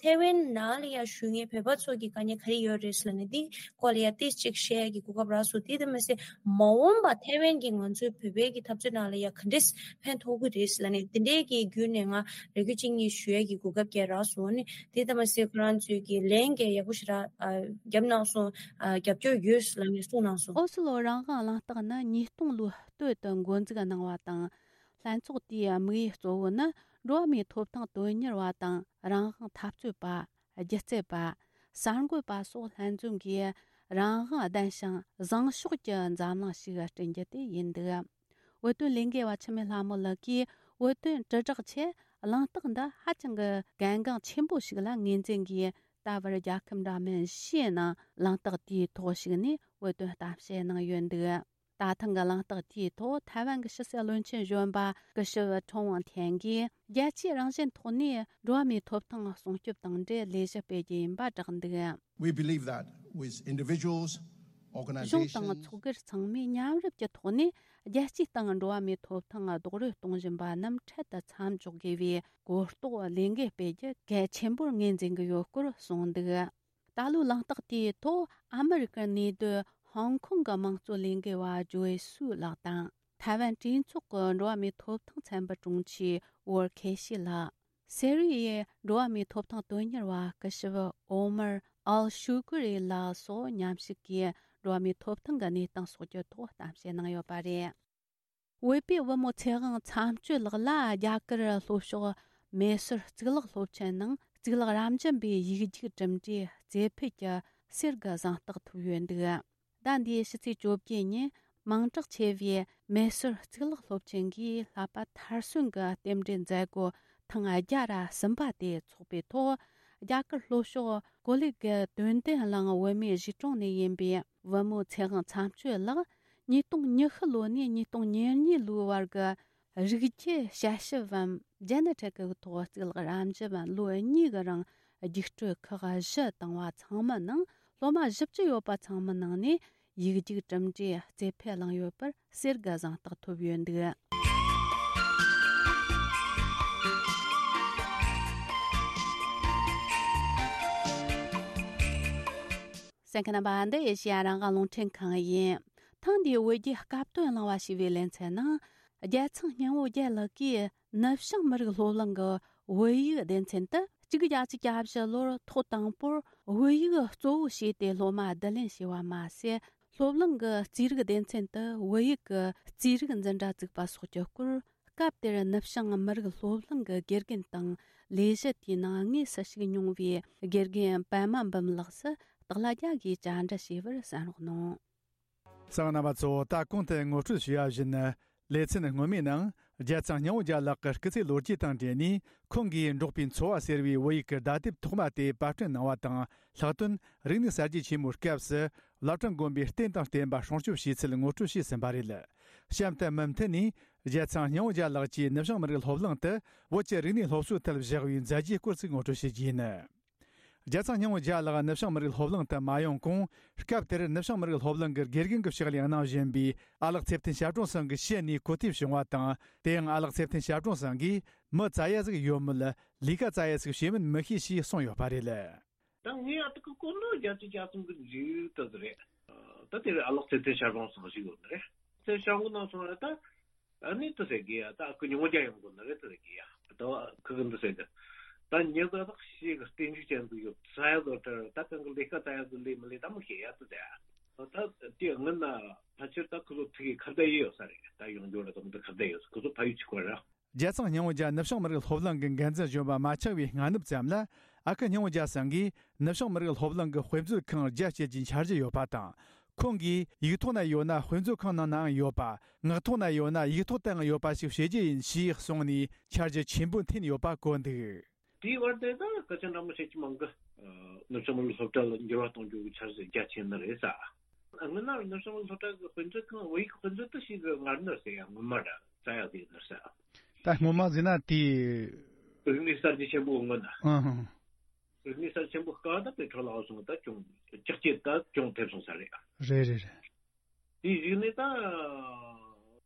ཐའེ་ཝན་ནང་ལ་ཡང་བཞུགས་མཁན་བོད་པ་ཚོ་གི་དཀའ་ངལ་ག་རེ་ཡོད་རེད་ཟེར་ལབ་ནས། འདི་སྐོར་ལ་ཡང་ཏོག་ཙམ་ཅིག་བཤད་ཡ་གི་གོ་སྐབས་རག་སོང་། དེ་ལྟ་མ་ཟད་མ་འོངས་པ་ཐའེ་ཝན་གྱི་ང་ཚོའི་བོད་པའི་གི་འཐབ་རྩོད་ནང་ལ་ཡང་ག་འདྲས་ཕན་ཐོགས་ཀྱི་རེད་ཟེར་ལབ་ནས། དེ་འདྲའི་གི་བརྒྱུད་ནས་ང་རེ་སྐུལ་ཅིག་གཉིས་ཞུ་ཡ་གི་གོ་སྐབས་ཀྱང་རག་སོང་ནི། དེ་ལྟ་མ་ཟད་ཁོ་རང་ཚོས་གི་ལན་ཀྱང་ཡག་པོ་ཞེ་དྲག་ཨ་བརྒྱབ་གནང་སོང་། ཨ་རྒྱབ་སྐྱོར་ཡོད་ཟེར་ལབ་ནས་གསུངས་གནང་སོང་། ཨོ་སི་ལོ་རང་དབང་གླེང་སྟེགས་ནི་ཉིས་སྟོང་ལོའི་སྟོད་དུ་འགོ་འཛུགས་གནང་བ་དང་། ལྷན་ཚོགས་དེའི་དམིགས་ཡུལ་གཙོ་བོ་ནི་འགྲོ་བ་མིའི་ཐོབ་ཐང་དོན་གཉེར་བ་དང་། རང་དབང་འཐབ་རྩོད་པ། སྒྱུ་རྩལ་པ། གསར་འགོད་པ་སོགས་ལྷན་འཛོམས་ཀྱིས་རང་དབང་ལྡན་ཞིང་བཟང་ཕྱོགས་ཀྱི་འཛམ་གླིང་ཞིག་བསྐྲུན་རྒྱུ་དེ་ཡིན་འདུག་བོད་དོན་ལས་འགུལ་བ་འཆི་མེད་ལྷ་མོ་ལགས་ཀྱིས་བོད་དོན་དྲིལ་བསྒྲགས་ཆེད་གླེང་སྟེགས་འདི་ཧ་ཅང་གི་གལ་འགངས་ཆེན་པོ་ཞིག་ལ་ངོས་འཛིན་གྱིས། ད་བར་རྒྱལ་ཁབ་འདྲ་མིན་བཞིའི་ནང་གླེང་སྟེགས་དེའི་ཐོག་ཞུགས་ནས་བོད་དོན་གཏམ་བཤད་གནང་ཡོད་འདུག་ད་ཐེངས་ཀྱི་གླེང་སྟེགས་དེའི་ཐོག་ཐའེ་ཝན་གྱི་ཕྱི་སྲིད་བློན་ཆེན་གཞོན་པ་སྐུ་ཞབས་ཁྲོན་དབང་ཐན་གྱིས། རྒྱལ་སྤྱིའི་རང་བཞིན་ཐོག་ནས་འགྲོ་བ་མིའི་ཐོབ་ཐང་སྲུང་སྐྱོབ་དང་འབྲེལ་ལས་གཞི་སྤེལ་རྒྱུ་ཡིན་པ་བསྒྲགས་འདུག We believe that with individuals, གཞུང་དང་organizations, ཚོགས་སྒེར་ཚང་མས་མཉམ་རུབ་ཀྱི་ཐོག་ནས་རྒྱལ་སྤྱིའི་སྟེང་འགྲོ་བ་མིའི་ཐོབ་ཐང་རྡོག་རོལ་གཏོང་བཞིན་པ་རྣམས་འཕྲལ་དུ་མཚམས་འཇོག་དགོས་པའི་གོ་རྟོགས་ལས་འགུལ་སྤེལ་རྒྱུ་གལ་ཆེན་པོར་ངོས་འཛིན་གྱི་ཡོད་སྐོར་གསུངས་འདུག་ད་ལོའི་གླེང་སྟེགས་དེའི་ཐོག་ཨ་མི་རི་ཀར་གནས་སྡོད་ཧོང་ཀོང་གི་དམངས་གཙོ་ལས་འགུལ་བ་ཇོའི་སུའུ་ལགས་དང་། ཐའེ་ཝན་གྲོས་ཚོགས་ཀྱི་འགྲོ་བ་མིའི་ཐོབ་ཐང་ཚན་པའི་དྲུང་ཆེ་ཝོར་ཁེ་ཤི་ལགས། སེ་རི་ཡའི་འགྲོ་བ་མིའི་ཐོབ་ཐང་དོན་གཉེར་བ་སྐུ་ཞབས་ཨོ་མར་ཨལ་ཤུ་ཀུ་རི་ལགས་སོགས་མཉམ་ཞུགས་ཀྱིས་འགྲོ་བ་མིའི་ཐོབ་ཐང་གི་གནས་སྟངས་སོགས་ཀྱི་ཐོག་གཏམ་བཤད་གནང་ཡོད་པ་རེད། བོད་པའི་བུ་མོ་ཚེ་དབང་མཚམས་གཅོད་ལགས་ལ་རྒྱ་གར་ལྷོ་ཕྱོགས་མེ་སོར་གཙུག་ལག་སློབ་ཆེན་ནང་གཙུག་ལག་རབ་འབྱམས་པའི་ཡིག་རྒྱུགས་གྲུབ་འབྲས་རྩེ་ཕུད་ཀྱི་གསེར་གྱི་གཟེངས་རྟགས་ཐོབ་ཡོད་འདུག་ཟླ་འདིའི་ཕྱི་ཚེས་བཅོ་བརྒྱད་ཉིན་མིང་གྲགས་ཆེ་བའི་མེ་སོར་གཙུག་ལག་སློབ་ཆེན་གྱིས་བསླབ་པ་མཐར་སོན་གྱི་རྟེན་འབྲེལ་མཛད་སྒོ་ཐེངས་བརྒྱ་ར་གསུམ་པ་དེ་འཚོགས་པའི་ཐོག་རྒྱ་གར་ལྷོ་ཕྱོགས་ཀོ་ལི་གི་དོན་ལྡན་གླིང་བོད་མིའི་གཞིས་གྲོང་ནས་ཡིན་པའི་བུ་མོ་ཚེ་དབང་མཚམས་གཅོད་ལགས་ཉིས་སྟོང་ཉི་ཤུ་ལོ་ནས་ཉིས་སྟོང་ཉེར་གཉིས་ལོའི་བར་གྱི་རིགས་རྒྱུད་དཔྱད་ཞིབ་བམ་ཇེ་ནེ་ཊིག་གི་ཐོག་གཙུག་ལག་རབ་འབྱམས་ལོ་གཉིས་ཀྱི་རིང་རྒྱུགས་སྤྲོད་ཁག་བཞི་བཏང་བ་ཚང་མའི་ནང་སློབ་མ་བཞི་བཅུ་ཡོད་པ་ཚང་མའི་ནང་ནས་ཡིག་རྒྱུགས་གྲུབ་འབྲས་རྩེ་ཕུད་བླངས་ཡོད་པར་གསེར་གྱི་གཟེངས་རྟགས་ཐོབ་ཡོད་འདུག་གསན་མཁན་རྣམ་པ། འདི་ཨེ་ཤེ་ཡ་རང་དབང་རླུང་འཕྲིན་ཁང་ཡིན། ཐེངས་འདིའི་བོད་རྒྱའི་སྐབས་དོན་གླེང་བ་ཞེས་པའི་ལེ་ཚན་ནང་། རྒྱལ་ཚང་སྙིང་བོ་རྒྱལ་ལགས་ཀྱིས་ནུབ་བྱང་མི་རིགས་སློབ་གླིང་གི་བོད་ཡིག་སྡེ་ཚན་དུ། གཅིག་བརྒྱད་ཅུ་གྱ་བཞི་ལོར་ཐོག་དང་པོར་བོད་ཡིག་གཙོ་བོ་བྱས་ཏེ་སློབ་མ་བསྡུ་ལེན་བྱས་པ་མ་ཟད། སློབ་གླིང་གི་རྩིས་རིག་སྡེ་ཚན་དུ་བོད་ཡིག་གི་རྩིས་རིག་འཛིན་གྲྭ་བཙུགས་པ་སོགས་ཀྱི་སྐོར། སྐབས་དེར་ནུབ་བྱང་མི་རིགས་སློབ་གླིང་གི་དགེ་རྒན་དང་ལས་གཞི་དེའི་ནང་དངོས་སུ་ཞུགས་མྱོང་བའི་དགེ་རྒན་པད་མ་འབུམ་ལགས་སུ་སྟག་ལྷ་རྒྱལ་གྱིས་བཅར་འདྲི་བྱས་པར་གསན་རོགས་གནང་། གསན་པ་རྣམ་པ་ཚོ། ད་གོང་དུ་ངོ་སྤྲོད་ཞུས་པ་བཞིན། ལེ་ཚན་སྔོན་མའི་ནང་རྒྱལ་ཚང་སྙིང་བོ་རྒྱལ་ལགས་ཀྱི་སྐུ་ཚེ་ལོ་རྒྱུས་དང་འབྲེལ་ནས། ཁོང་གིས་འབྲོག་པའི་འཚོ་བ་ཟེར་བའི་བོད་ཡིག་གི་བརྡ་དེབ་ཐོག་མ་དེ་པར་སྐྲུན་གནང་བ་དང་། ལྷག་དོན་རིག་གནས་གསར་བརྗེ་ཆེན་མོའི་སྐབས་སུ་བླ་བྲང་དགོན་པའི་རྟེན་དང་བརྟེན་པ་སྲུང་སྐྱོབ་བྱས་ཚུལ་ངོ་སྤྲོད་བྱས་ཟིན་པ་རེད། གཤམ་དུ་མུ་མཐུད་ནས་རྒྱལ་ཚང་སྙིང་བོ་རྒྱལ་ལགས་ཀྱིས་ནུབ་བྱང་མི་རིགས་སློབ་གླིང་དུ་བོད་ཀྱི་རིག་གནས་སློབ་གསོའི་ཐད་བཞག་པའི་མཛད་རྗེས་སྐོར་ཞིག་ངོ་སྤྲོད་བྱེད་རྒྱུ་ཡིན། རྒྱལ་ཚང་སྙིང་བོ་རྒྱལ་ལགས་ནུབ་བྱང་མི་རིགས་སློབ་གླིང་དུ་མ་ཡོང་གོང་། སྐབས་དེར་ནུབ་བྱང་མི་རིགས་སློབ་གླིང་གི་དགེ་རྒན་གྱི་ཕྱག་ལས་གནང་བཞིན་པའི་ཨ་ལགས་ཚེ་བརྟན་ཞབས་དྲུང་ཚང་གི་ཞི་ནས་གོ་ཐོས་བྱུང་བ་དང་། དེ་ཡང་ཨ་ལགས་ཚེ་བརྟན་ཞབས་དྲུང་ཚང་གིས་མི་བཙལ་ཡ་ཟིག་ཡོད་མེད་ལས་ཀ་བཙལ་ཡ་ཟིག་བྱེད་མིན་མི་ཤེས་ཞེས་གསུངས་ཡོད་པ་རེད། ད་ངས་ཨ་ཏི་ཀི་ཀོ་ནོ་རྒྱ་ཆེ་རྒྱ་སུང་གི་འཇིག་ཏུ་རེད། ད་དེ་རེད། ཨ་ལགས་ཚེ་བརྟན་ཞབས་དྲུང་ཚང་ཞིག་ཡོད་ནི་རེད། དེ་ཤང་གི་ནང་སོང་ར་ད། ཨ་ནི་དེ་ཟེར་གི་ཡ། ད་ཁོ་ཉུང་ཉུང་རྒྱ་ཡོང་གི་ནི་རེད་དེ་ཟེར་གི་ཡ། ད་ཁོ་གི་འདི་ཟེར་གི། ད་ཉི་ཟླ་དག་ཞིག་གི་རྟེན་འབྲེལ་ཅན་དུ་ཡོད་ས་ཡ་ལོ་ཏྲ་ད་གང་གི་ལས་ཀ་ད་ཡ་གི་ལས་མི་ལས་ད་མི་ཤེས་ཡ་དེ་ཟེར། ད་དེ་སྔོན་ན་ཕལ་ཆེར་ད་ཁོ་ཚོ་ཐུག་གི་ཁ་བརྡ་ཡི་ཡོད་ས་རེད། ད་ཡོང་རྒྱུ་ར་དང་དེ་ཁ་བརྡ་ཡོད་ས། ཁོ་ཚོ་ཕ་ཡུལ་གཅིག་པ་ར། རྒྱལ་ཚང་སྙིང་བོ་རྒྱལ་ནུབ་བྱང་མི་རིགས་སློབ་གླིང་གི་འགན་འཛིན་གཞོན་པ་མ་ཆགས་པའི་སྔ་ནུབ་ཙམ་ལ། ཨ་ཁུ་སྙིང་བོ་རྒྱལ་ཚང་གིས་ནུབ་བྱང་མི་རིགས་སློབ་གླིང་གི་དཔེ་མཛོད་ཁང་རྒྱ་བསྐྱེད་རྒྱུའི་འཆར་གཞི་ཡོད་པ་དང་། ཁོང་གིས་ཡིག་ཐོག་ན་ཡོད་ན་དཔེ་མཛོད་ཁང་ནང་ནའང་ཡོད་པ། ངག་ཐོག་ན་ཡོད་ན་ཡིག་ཐོག་ཏུའང་ཡོད་པ་ཞིག་བྱེད་རྒྱུ་ཡིན་ཞེས་གསུངས་ནས་འཆར་གཞི་ཆེན་པོ་འཐེན་ཡོད་པ་གོ་འདུག། དེའི་བར་དེ་ད་སྐད་ཆ་འདྲ་མོ་བཤད་ཀྱི་མང་གི། ནུབ་བྱང་མི་རིགས་སློབ་གྲྭ་ལ་འགྱུར་བ་གཏོང་རྒྱུ་གི་འཆར་གཞི་རྒྱ་ཆེ་ནི་རེད་ས། སྔོན་ན་ནུབ་བྱང་མི་རིགས་སློབ་གྲྭ་གི་དཔེ་མཛོད་ཁང་བོད་ཡིག་གི་དཔེ་མཛོད་དུ་ཞིག་གི་ངར་ནི་ཟེར་ཡ་ངོ་མ་ར་རྩ་ཡག་དེ་ཡིན་ནི་ས། ད་སྔོན་མ་ཟེར་ན་དེ། རིག་གནས་གསར་བརྗེ་ཆེན་པོའི་སྔོན་ན། ཨང་ཧང་། རིག་གནས་གསར་ཆེན་པོ་སྐབས་ད་དཔེ་འཕྲོ་བརླག་སོང་ད་ཅུང་ལྕགས་ཀྱི་ད་ཅུང་ཐེབས་སོང་ས་རེད། རེད་རེད་རེད། དེའི་གཞུག་ནས་ད་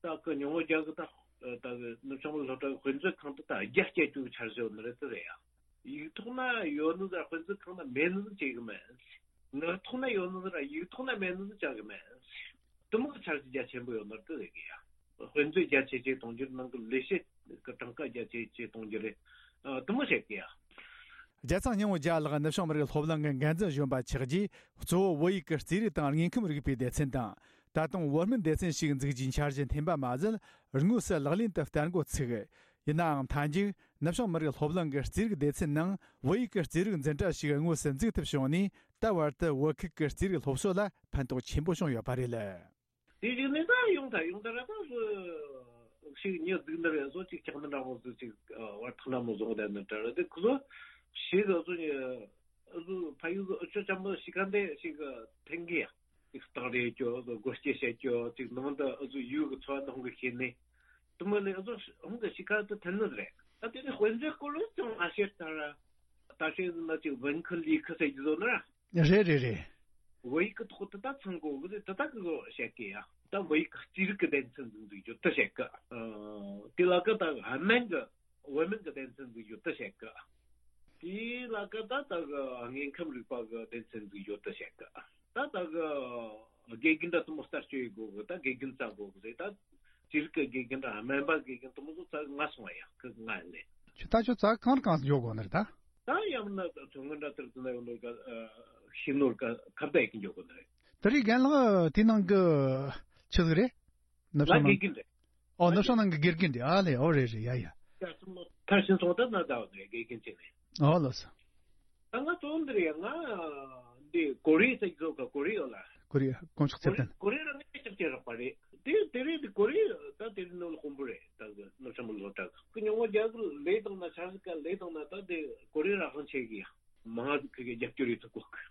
ད་གི་ཉུང་ངུ་རྒྱ་གི་ད་ད་གི་ནུབ་བྱང་མི་སློབ་གྲྭ་གི་དཔེ་མཛོད་ཁང་དུ་ད་རྒྱ་སྐྱེད་རྒྱུ་གི་འཆར་གཞི་ཡོད་ནི་རེད་དེ་རེད་ཡ། ཡིག་ཐོག་ན་ཡོད་ནི་ཟེར་དཔེ་མཛོད་ཁང་ན་མེད་ནི་ཟིག་བྱེད་གི་མེད། ངག་ཐོག་ན་ཡོད་ནི་ཟེར་ཡིག་ཐོག་ན་མེད་ནི་ཟིག་བྱ་གི་མེད། དེ་མོ་གི་འཆར་གཞི་རྒྱ་ཆེན་པོ་ཡོད་ནི་རེད་དེ་རེད་གི་ཡ། དཔེ་མཛོད་རྒྱ་ཆེ་ཆེ་གཏོང་རྒྱུ་རེད། ནང་གི་ལས་བྱེད་ཀྱི་གྲངས་ཀ་རྒྱ་ཆེ་ཆེ་གཏོང་རྒྱུ་རེད། ཨ། དེ་མོ་བྱེད་གི་ཡ། རྒྱལ་ཚང་སྙིང་བོ་རྒྱལ་ལགས་ནུབ་བྱང་མི་རིགས་སློབ་གླིང་གི་འགན་འཛིན་གཞོན་པ་ཆགས་རྗེས། གཙོ་བོ་བོད་ཡིག་གི་རྩིས་རིག་དང་དངོས་ཁམས་རིག་པའི་སྡེ་ཚན་དང་། ད་དུང་བོད་སྨན་སྡེ་ཚན་ཞིག་འཛུགས་རྒྱུའི་འཆར་གཞི་འཐེན་པ་མ་ཟད། དངོས་སུ་ལག་ལེན་དུ་བསྟར་འགོ་ཚུགས། ཡིན་ནའང་མཐའ་མཇུག་ནུབ་བྱང་མི་རིགས་སློབ་གླིང་གི་རྩིས་རིག་སྡེ་ཚན་ནང་བོད་ཡིག་གི་རྩིས་རིག་འཛིན་གྲྭ་ཞིག་དངོས་སུ་འཛུགས་ཐུབ་བྱུང་ནས། ད་བར་དུ་བོད་ཁུལ་གྱི་རྩིས་རིག་སློབ་གསོ་ལ་ཕན་ཐོགས་ཆེན་པོ་བྱུང་ཡོད་པ་རེད། དེ་བཞིན་ནས་ད་ཡོང་ཐལ་ཡོང་ཐལ་ར་ད་སུ་ཞིག་ཉི་གཟུགས་འདི་རེད། བཟོ་ཅིག་ཆགས་འདི་འདྲ་བོ་ཟིག་ཅིག་བར་ཐག་འདྲ་མོ་བཟོ་བསྡད་ནི་འདྲ་རེད། དེ་ཁོ་ཚོ་ཞིག་བཟོ་ཉི་བཟོ་ཕ་ཡུལ་བཟོ་ཨུ་ཆོ་ཅམ་པོ་ཞིག་ག་འདི་ཞིག་ཐེང་གི་ཡ་ཅིག་སྟག་རེད་ཅོ་བཟོ་སྒོ་སྐྱེ་བྱེད་ཅོ་ཅིག་ནང་དུ་ཨུ་ཚོ་ཡུལ་གི་འཚོ་བ་འདི་ཧོང་གི་ཤེས་ནི་དུ་མ་ལས་ཨུ་ཚོ་ཧོང་གི་ཞིག་ག་དུ་ཐེན་ནི་རེད། ད་དེ་ནི་དཔེ་མཛོད་སྐོར་ལ་ཅང་མ་བཤད་ད་ར་ད་ཤེས་ཟིན་ན་ཅིག་文科理科ཟེར་གྱི་བཟོ་ནི་ར། རེད་རེད་རེད། བོད་ཡིག་གི་ཐོག་ཏུ་ད་ཚང་དགོས་གི་རེད། དེ་ད་གི་བཤད་གི་ཡ། ད་བོད་ཡིག་གི་རྩིས་རིག་གི་སྡེ་ཚན་འཛུགས་འཛུགས་རྒྱུ་དེ་བཤད་གི། ཨ། དེ་ལ་གི་ད་སྨན་གི་བོད་སྨན་གི་སྡེ་ཚན་འཛུགས་རྒྱུ་དེ་བཤད་གི། དེ་ལ་གི་ད་ད་གི་དངོས་ཁམས་རིག་པ་གི་སྡེ་ཚན་འཛུགས་རྒྱུ་དེ་བཤད་གི། ད་ད་གི་དགེ་རྒན་ད་དུ་མོ་ལྟ་སྤྱོད་ཡི་དགོས་གི། ད་དགེ་རྒན་རྩ་དགོས་གི་རེད། ད་རྩིས་རིག་གི་དགེ་རྒན་ད་སྨན་པ་དགེ་རྒན་དུ་མོ་ཚོ་རྩ་ང་སོང་བ་ཡ་གི་ང་ལས། ཁྱོད་ད་ཁྱོད་རྩ་གང་གང་འཇོག་དགོས་ནི་རེད་ད། ད་ཡང་ན་མཚོ་སྔོན་འདྲ་དེར་དུ་ན་ཡོང་ནོར་ག་ཤི་ནོར་ག་ཁ་བརྡ་ཡེ་གི་འཇོག་གི་ནི་རེད། དེ་རིང་རྒན་ལགས་དེ་ནང་གི་ཆི་ཟིག་རེད། ནུབ་ལ་བྱང་ནང་དགེ་རྒན་རེད། ཨོ་ནུབ་བྱང་ནང་གི་དགེ་རྒན་རེད། ཨ་ལེ་ཨོ་རེད་རེད་ཡ་ཡ། ཡ་སུ་མོ་ཐར་ཕྱིན་སོང་ད་ན་ད་བ་རེད་དགེ་རྒན་ཅིག་རེད། ཨོ་ལོ་སོ། ད་ང་ཚོ་འདི་རེད་ཡ། ང་འདི་ཀོ་རི་ཟེར་གི་ཚོ་ག་ཀོ་རི་ཡོད་ལ། ཀོ་རི་ཡ་དཀོན་མཆོག་ཚེ་བརྟན། ཀོ་རི་ར་ངས་ཅག་ཅེ་རག་པ་རེད། དེ་དེ་རེད། དེ་ཀོ་རི་ད་དེ་རིང་ནོར་དཔོན་པོ་རེད། ད་གི་ནུབ་བྱང་མི་སློབ་གྲྭ་གི་ཉོ་ངོ་རྒྱ་གི་ལས་དང་ན་ཆ་གི་ལས་དང་ན་ད་དེ་ཀོ་རི་ར་ཧང་ཆེ་གི་ཡ་མང་ང་གི་རྒྱབ་སྐྱོར་ཡོད་ཐུབ་གོ་གི།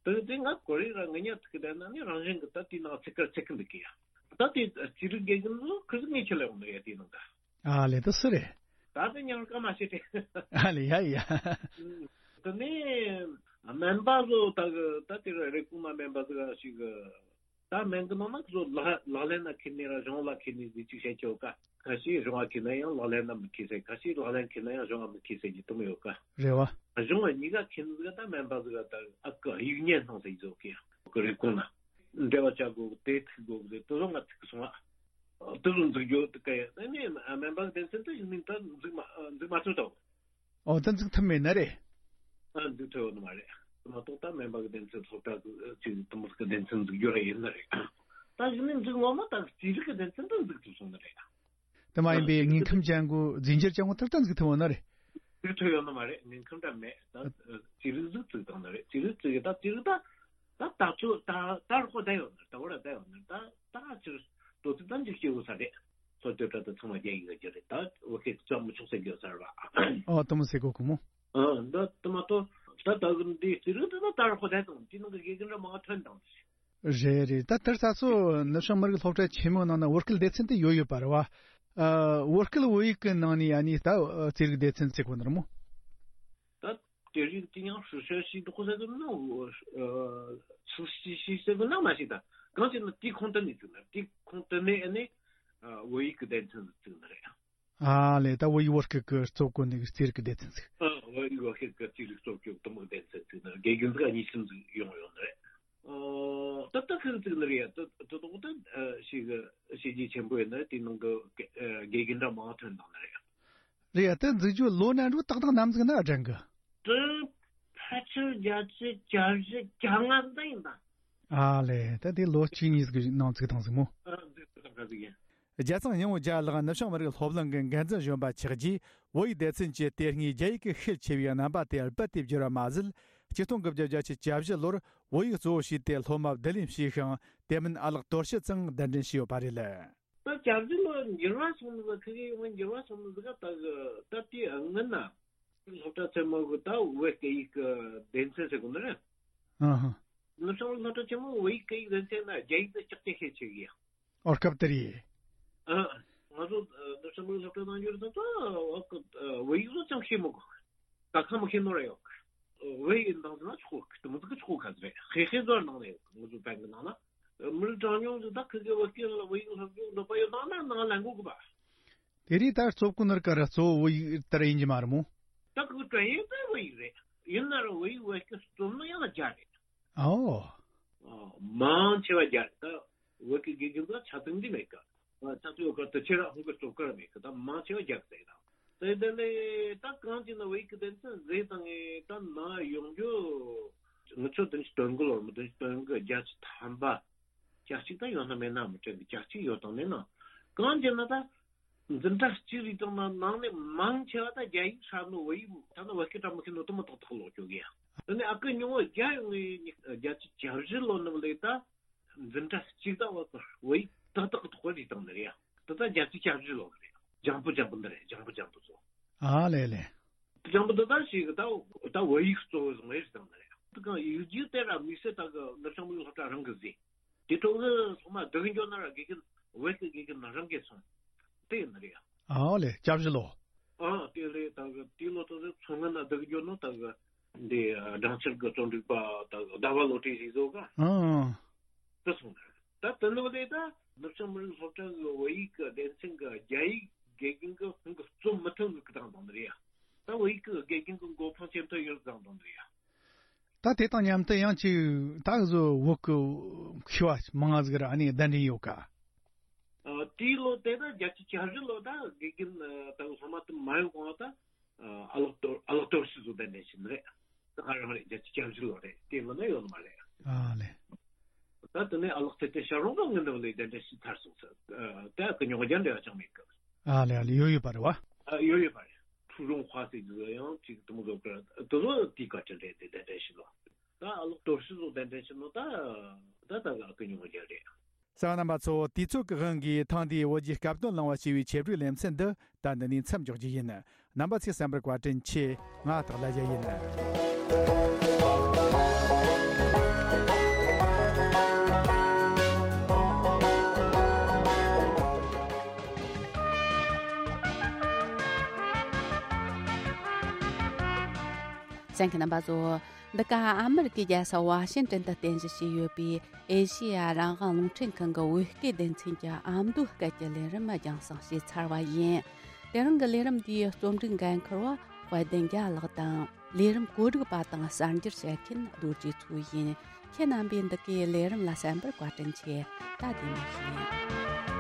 དེ་དེ་ང་ཀོ་རི་ར་ང་ཉག་ཐུག་གི་ད་ན་ནི་རང་བཞིན་གི་ད་དེ་ནང་ཚིག་ཀར་ཚིག་གི་འདུག་གི་ཡ། ད་དེ་ཅི་རིགས་དགེ་རྒན་ལོ་ཁི་ཟི་ངས་ཁྱེད་ལ་ཡོང་ནི་ཡ་དེ་ནང་ད། ཨ་ལེ་དུ་སུ་རེད། ད་དེ་ཉང་སྐར་མ་ཤེས་ཏེ། ཨ་ལེ་ཡ་ཡ། དེ་ནས་སྨན་པ་ཚོ་ད་གི་ད་དེ་རེ་སྐུང་ན་སྨན་པ་ཚོ་ཞིག་གི་ད་སྨན་གི་ནང་ན་ཁོ་ཚོ་ལག་ལག་ལེན་ན་ཁེལ་ནི་ར་གཞུང་ལ་ཁེལ་ནི་ཟིག་ཅིག་བཤད་ཆོག་ག། ཁ་ཤས་གཞུང་ལ་ཁེལ་ན་ཡང་ལག་ལེན་ན་མི་ཁེལ་ཟེར། ཁ་ཤས་ལག་ལེན་ཁེལ་ན་ཡང་གཞུང་ལ་མི་ཁེལ་ཟེར་གྱི་དུ་མོ་ཡོད་ག། རེད་བ། གཞུང་ལ་གཉིས་ཀ་ཁེལ་ནི་ཟིག་ད་སྨན་པ་ཟིག་ད་ཨ་ཀི་ཡིག་ཉན་སྣང་ཟེར་གྱི་ཟོ་གི་ཡང་གི་རེ་སྐུང་ན། འབྲེལ་བ་བྱ་དགོས་གི་དེ་ཐུག་དགོས་གི་དེ་ཚོ་ང་ཐུག་གི་སོང་ཨ། དེ་ཚོ་འཛུགས་རྒྱུ་དེ་ག་ཡ་ཨ་ནི་སྨན་པ་སྡེ་ཚན་དུ་ཡིན་མིན་ད་འཛུགས་མ་འཛུགས་མ་ཐུབ་དོ། ཨོ་ད་འཛུགས་ཐུབ་མེད་ན་རེད། ཨ་འཛུགས་ཐུབ་ཡོད་ནི་མ་རེད། མ་གཏོགས་ད་སྨན་པ་གི་སྡེ་ཚན་ཚོགས་པ་གི་ཅིག་དུ་མོ་གི་སྡེ་ཚན་འཛུགས་རྒྱུ་ར་ཡིན་ནི་རེད། ད་ཡིན་ནི་འཛུགས་ངོ་མ་ད་རྩིས་རིག་གི་སྡེ་ཚན་དུ་འཛུགས་ཐུབ་སོང་ནི་རེད། དེ་མ་ཡིན་པའི་དངོས་ཁམས་ཅན་གོ་རྫས་འགྱུར་ཅན་གོ་ཐུར་ཐུར་འཛུགས་ཐུབ་ཡོད་ན་རེད། འཛུགས་ཐུབ་ཡོད་ནི་མ་རེད། དངོས་ཁམས་འདྲ་མེད། ད་རྩིས་རིག་འཛུགས་ཚུགས་དང་ནི་རེད། རྩིས་རིག་བཙུགས་ཡོད་ད་རྩིས་རིག་ད་ད་ད་ཚོ་ད་ད་རོགས་བསྡད་ཡོད་ནི་ད་བར་བསྡད་ཡོད་ནི་ད་ད་ཅིར་དོ་ཚིག་ད་འཇིགས་སྐྱེ་བོ་ས་རེད། སློབ་དེབ་ད་ཚང་མ་རྒྱ་ཡིག་ལ་བསྒྱུར་རེད། ད་བོད་སྐད་བརྩམ་མི་ཆོག་ཟེར་གྱི་ཡོད་ས་རེད་བ། ཨོ་དུ་མོ་ཟེར་གོ་གི་མོ། ཨ་ད་དུ་མ་ཏོ་ད་ད་གི་འདི་རྩིས་རིག་ད་ད་རོགས་བསྡད་དང་དེ་ནང་གི་དགེ་རྒན་འདྲ་མང་ཐོན་དང་། རེད་རེད། ད་དེར་ས་སོ་ནུབ་བྱང་མི་རིགས་སློབ་གྲྭ་ཆེན་མོའི་ནང་ན་བོད་སྐད་སྡེ་ཚན་དེ་ཡོད་ཡོད་པ་རེད་བ། ཨ་བོད་སྐད་བོད་ཡིག་གི་ནང་ནས་ཡ་ནི་ད་རྩིས་རིག་སྡེ་ཚན་ཟེར་གོ་ནི་རེད་མོ། ད་དེ་རིང་དེ་ཡང་ཧྲུ་ཤ་ཤི་འདུག་ཟེར་གི་ན། ཨ་ཚུལ་ཤི་ཤི་ཟེར་གི་ན་མ་ཤི་ད་གང་ཅི་ན་དེ་ཁོང་དུ་ནས་བཙུགས་ན་དེ་ཁོང་དུ་ནས་ཨ་ནི་བོད་ཡིག་གི་སྡེ་ཚན་བཙུགས་ན་རེད། ཨ་ལེ་ད་བོད་ཡིག་བོད་སྐད་ཀྱི་གཙོ་བོ་ནི་རྩིས་རིག་གི་སྡེ་ཚན་ཟིག་ཨ་བོད་ཡིག་བོད་སྐད་ཀྱི་རྩིས་རིག་གཙོ་བོ་དུ་མོ་སྡེ་ཚན་ཟིག་ན་དགེ་རྒན་ཟིག་གཉིས་གསུམ་ཟིག་ཡོང་ཡོང་ནི་རེད། ཨོ། ད་ལྟ་ཁུར་བཙུགས་ནི་རེད་ཡ། ད་ད་དོག་ད་ཞིག་གི་བྱས་རྗེས་ཆེན་པོ་ཡིན་ན་དེའི་ནང་གི་དགེ་རྒན་འདྲ་མང་ཐོན་བཏང་ནི་རེད་ཡ། རེད་ཡ། ད་འཛུགས་རྒྱུ་ལོ་ན་འགྲོ་ཏག་ཏག་ནམ་ཟིག་ན་དྲན་གི། དྲན། ཕལ་ཆེར་བརྒྱད་ཅུ་གྱ་བཞི་གྱ་ལྔ་ཟིག་ད་ཡིན་ད། ཨ་ལེ། ད་དེ་ལོ་གཅིག་གཉིས་ཟིག་གི་ནང་བཙུགས་བཏང་ཟིག་མོ། ཨ་འཛུགས་བཏང་ག་ཟིག་ཡིན། རྒྱལ་ཚང་སྙིང་བོ་རྒྱལ་ལགས་ནུབ་བྱང་མི་རིགས་སློབ་གླིང་གི་འགན་འཛིན་གཞོན་པ་ཆགས་རྗེས་བོད་ཡིག་སྡེ་ཚན་གྱི་དེ་སྔའི་རྒྱ་ཡིག་གི་ཤུགས་ཆེ་བའི་རྣམ་པ་དེ་རྦད་དེ་བསྒྱུར་བ་མ་ཟད། ཆིག་སྟོང་དགུ་བརྒྱ་བརྒྱད་ཅུ་གྱ་བཞི་ལོར་བོད་ཡིག་གཙོ་བོ་བྱས་ཏེ་སློབ་མ་བསྡུ་ལེན་བྱས་ཤིང་། དེ་མིན་ཨ་ལགས་དོར་ཞི་ཚང་གདན་འདྲེན་བྱས་ཡོད་པ་རེད། ད་གྱ་བཞི་ལོ་འགྱུར་བ་སོང་ནི་ཟིག་ཁི་གེ་ཡོང་འགྱུར་བ་སོང་ནི་ཟིག་ག་ད་གི་ད་དེའི་སྔོན་ན་སློབ་གྲྭ་ཆེན་མོ་གི་ད་བོད་སྐད་ཡིག་གི་སྡེ་ཚན་ཟེར་གོ་ནི་རེད། ཨ་ཧ། ནུབ་བྱང་སློབ་གྲྭ་ཆེན་མོ་བོད་ཡིག་སྐད་ཡིག་སྡེ་ཚན་ན་རྒྱ་ཡིག་ད་ལྕགས་ཀྱི་ཤེས་ཆེ་གི་ཡ། ཨོ་སྐབས་དེར་ཡིན། ཨ། ང་ཚོ་ནུབ་བྱང་མི་རིགས་སློབ་གྲྭ་ནང་ཡོད་ཙང་ད་བོད་ཡིག་བཟོ་ཅང་ཤེས་མི་དགོས། ད་ཁ་མི་ཤེས་ནོ་ར་ཡོད། བོད་ཡིག་འདང་ཟེར་ན་ཆོག་གི་དེ་མི་ཚིག་གི་ཆོག་ག་ཟེར་རེད། ཧེ་ཧེ་ཟོར་ནང་ནས་ང་ཚོ་བན་གི་ནང་ན་མི་རིགས་གྲངས་ཉུང་ཟིག་ད་ཁི་གི་བོད་སྐད་ལ་བོད་ཡིག་སློབ་སྦྱོང་འདོད་པ་ཡོད་ནང་ན་ནང་ལ་འགོ་གི་པ། དེ་རིང་ད་རྩོབ་ཀུན་ནར་ཀ་ར་གཙོ་བོ་བོད་ཡིག་ལྟར་ཡིན་གྱི་མ་རེད་མོ། ད་ཁི་གི་ཀྲན་ཡིན་ད་བོད་ཡིག་རེད། ཡིན་ན་ར་བོད་ཡིག་བོད་སྐད་རྩོམ་ན་ཡང་ན་རྒྱ་རེད། ཨོ། ཨ། མང་ཆེ་བ་རྒྱ་རེད། ད་བོད་ཀྱི་དགེ་རྒན་ཚོ་ཆ་ཚང་འདི་མེད་ཀ། ཆ་ཚང་ཡོད་ཀ་དུ་ཁྱེད་རང་ཧུང་གི་སྟོབས་ཀ་ར་མེད་ཀ། ད་མང་ཆེ་བ་རྒྱ་གི་ཟེར་ད། དེ་དེ་ལས་ད་གང་ཅི་ན་བོད་ཀྱི་སྡེ་ཚན་ཟེར་དང་ངས་ད་ན་ཡོང་རྒྱུ། ང་ཚོ་བདུན་ཅུ་དོན་དགུ་ལོར་མི་བདུན་ཅུ་དོན་དགུ་བརྒྱད་ཅུ་ཐམ་པ། གྱ་གཅིག་ད་ཡོད་ན་མེད་ན་མི་དྲན་གི། གྱ་གཅིག་ཡོད་དང་མེད་ན། གང་ཅི་ན་ད། འཛིན་གྲྭ་གཅིག་རེད་དང་ན་ནང་ནས་མང་ཆེ་བ་ད་རྒྱ་ཡིག་ཧྲ་ནོ་བོད་ཡིག་ད་ནི་བོད་སྐད་ཀྲ་མི་ཤེས་ནོ་དུ་མ་ཏག་ཏག་ལོག་ཅོ་གི་ཡ། དེ་ནས་ཨ་ཀི་ཉུང་བོ་རྒྱ་ཡོང་ངེ་རྒྱ་ཆི་བྱ་བཞི་ལོ་ནི་བ་ལས་ད་འཛིན་གྲྭ་གཅིག་ད་བོད་ཡིག་ཏག་ཏག་གི་ཐོག་རེད་དང་ནི་རེད་ཡ། ད་ད་རྒྱ་ཆི་བྱ་བཞི་ལོ་རེད། ལྗང་བུ་ལྗང་བུ་འདི་རེད། ལྗང་བུ་ལྗང་བུ་ཚོ། ཨ་ལེ་ལེ། ལྗང་བུ་འདི་ད་ཞིག་ད་ད་བོད་ཡིག་གཙོ་བོ་བཟུང་བའི་རེད་དང་ནི་རེད། དེ་གང་ཡིག་རྒྱུགས་དེ་ར་དམིགས་བསལ་ད་གི་ནུབ་བྱང་མི་རིགས་སློབ་གྲྭ་རང་གི་ཟིན། དེ་ཐོག་གི་སློབ་མ་བསྡུ་གི་འགྱོ་ན་ར་དགེ་རྒན་བོད་ཀྱི་དགེ་རྒན་རང་གི་སོང་། དེ་ཡིན་ནི་རེད་ཡ། ཨོ་ལེ། སྐྱབས་བཞི་ལོ། ཨ་དེ་ལས་ད་གི་དེ་ལོ་ཐོག་གི་མཚོ་སྔོན་ན་བསྡུ་གི་འགྱོ་ནོ་ད་གི་འདི་སྦྲང་ཆར་གི་རྩོམ་སྒྲིག་པ་ད་གི་ཟླ་བ་བློ་གྲོས་ཞིག་བཟོ་ག་ཨང་། དེ་སོང་ནི་རེད། ད་དེ་ལོ་ལས་ད་ནུབ་བྱང་མི་རིགས་སློབ་གྲྭ་གི་བོད་ཡིག་གི་སྡེ་ཚན་གི་རྒྱ་ཡིག་དགེ་རྒན་གི་ཧུང་གི་རྩོམ་མི་ཐུབ་གི་བཏང་བཏང་ནི་རེད་ཡ། ད་བོད་ཡིག་གི་དགེ་རྒན་གི་མགོ་འཕང་ཇེ་མཐོ་ཡོད་བཏང་བཏང་ནི་རེད་ཡ། ད་དེ་དང་མཉམ་དུ་ཡང་ཅིག་ད་གཟོད་བོད་ཀྱི་མཁས་པ་མང་ང་ཟིག་ར་ཨ་ནི་གདན་འདྲེན་ཡོད་ཀ། ཨ། དེའི་ལོ་དེ་ད་བརྒྱད་ཅུ་གྱ་བཞི་ལོ་ད་དགེ་རྒན་ད་སློབ་མ་དུ་མ་ཡོང་གོང་ད་ཨ་ལགས་དོར་ཨ་ལགས་དོར་ཞི་བཟོ་གདན་འདྲེན་ཞིག་ནི་རེད། ད་ག་རང་རེད། བརྒྱད་ཅུ་གྱ་བཞི་ལོ་རེད། དེ་ལོ་ན་ཡོད་ནི་མ་རེད། ཨ་ལེ། ད་དེ་ནས་ཨ་ལགས་ཚེ་བརྟན་ཞབས་དྲུང་གི་ངི་འདི་ལས་གདན་འདྲེན་ཞིག་ཚར་སོང་ཟེར། ད་ཀི་ཉོག་རྒྱ་འབྲེལ་བ་ཅང་མེད་ཀི། ཨ་ལེ་ཨ་ལེ། ཡོད་ཡོད་པ་རེད་བ། ཨ་ཡོད་ཡོད་པ་རེད། ཁྲུའུ་རུང་ཧྭ་ཟེར་གི་ཡང་ཅིག་དུ་མོ་བཟོ་གི་དུ་ལོ་དེའི་བཀའ་དྲིན་རེད། དེ་གདན་འདྲེན་ཞུ་ལོ། ད་ཨ་ལགས་དོར་ཞི་བཟོ་གདན་འདྲེན་ཞུ་ནོ་ད་ད་ད་ག་ཀི་ཉོ་རྒྱ་རེད། གསན་པ་རྣམ་པ་ཚོ། དུས་ཚོད་ཀྱི་དབང་གིས་ཐེངས་འདིའི་བོད་ཀྱི་སྐབས་དོན་གླེང་བ་ཞེས་པའི་ཆེད་སྒྲིག་ལེ་ཚན་འདི་ད་འདི་ནས་མཚམས་འཇོག་རྒྱུ་ཡིན། རྣམ་པ་ཚོས་གསན་པར་བཀའ་དྲིན་ཆེ། ང་སྟག་ལྷ་རྒྱལ་ཡིན། གསན་མཁན་རྣམ་པ་ཚོ། འདི་ག་ཨ་མི་རི་ཀའི་རྒྱལ་ས་ཝ་ཤིང་ཏོན་དུ་རྟེན་གཞི་བྱས་ཡོད་པའི་ཨེ་ཤེ་ཡ་རང་དབང་རླུང་འཕྲིན་ཁང་གི་བོད་སྐད་སྡེ་ཚན་གྱི་ཨ་མདོའི་སྐད་ཀྱི་ལས་རིམ་རྒྱང་སྲིང་བྱས་ཚར་བ་ཡིན། དེ་རིང་གི་ལས་རིམ་འདིའི་རྩོམ་སྒྲིག་འགན་འཁུར་བ་དཔལ་ལྡན་རྒྱལ་ལགས་དང་། ལས་རིམ་བཀོད་སྒྲིག་པ་དང་གསར་འགྱུར་བཤད་མཁན་རྡོ་རྗེ་མཚོ་ཡིན། ཁྱེད་རྣམ་པས་འདི་གའི་ལས་རིམ་ལ་གསན་པར་བཀའ་དྲིན་ཆེ། ད་བདེ་མོ་བྱོས།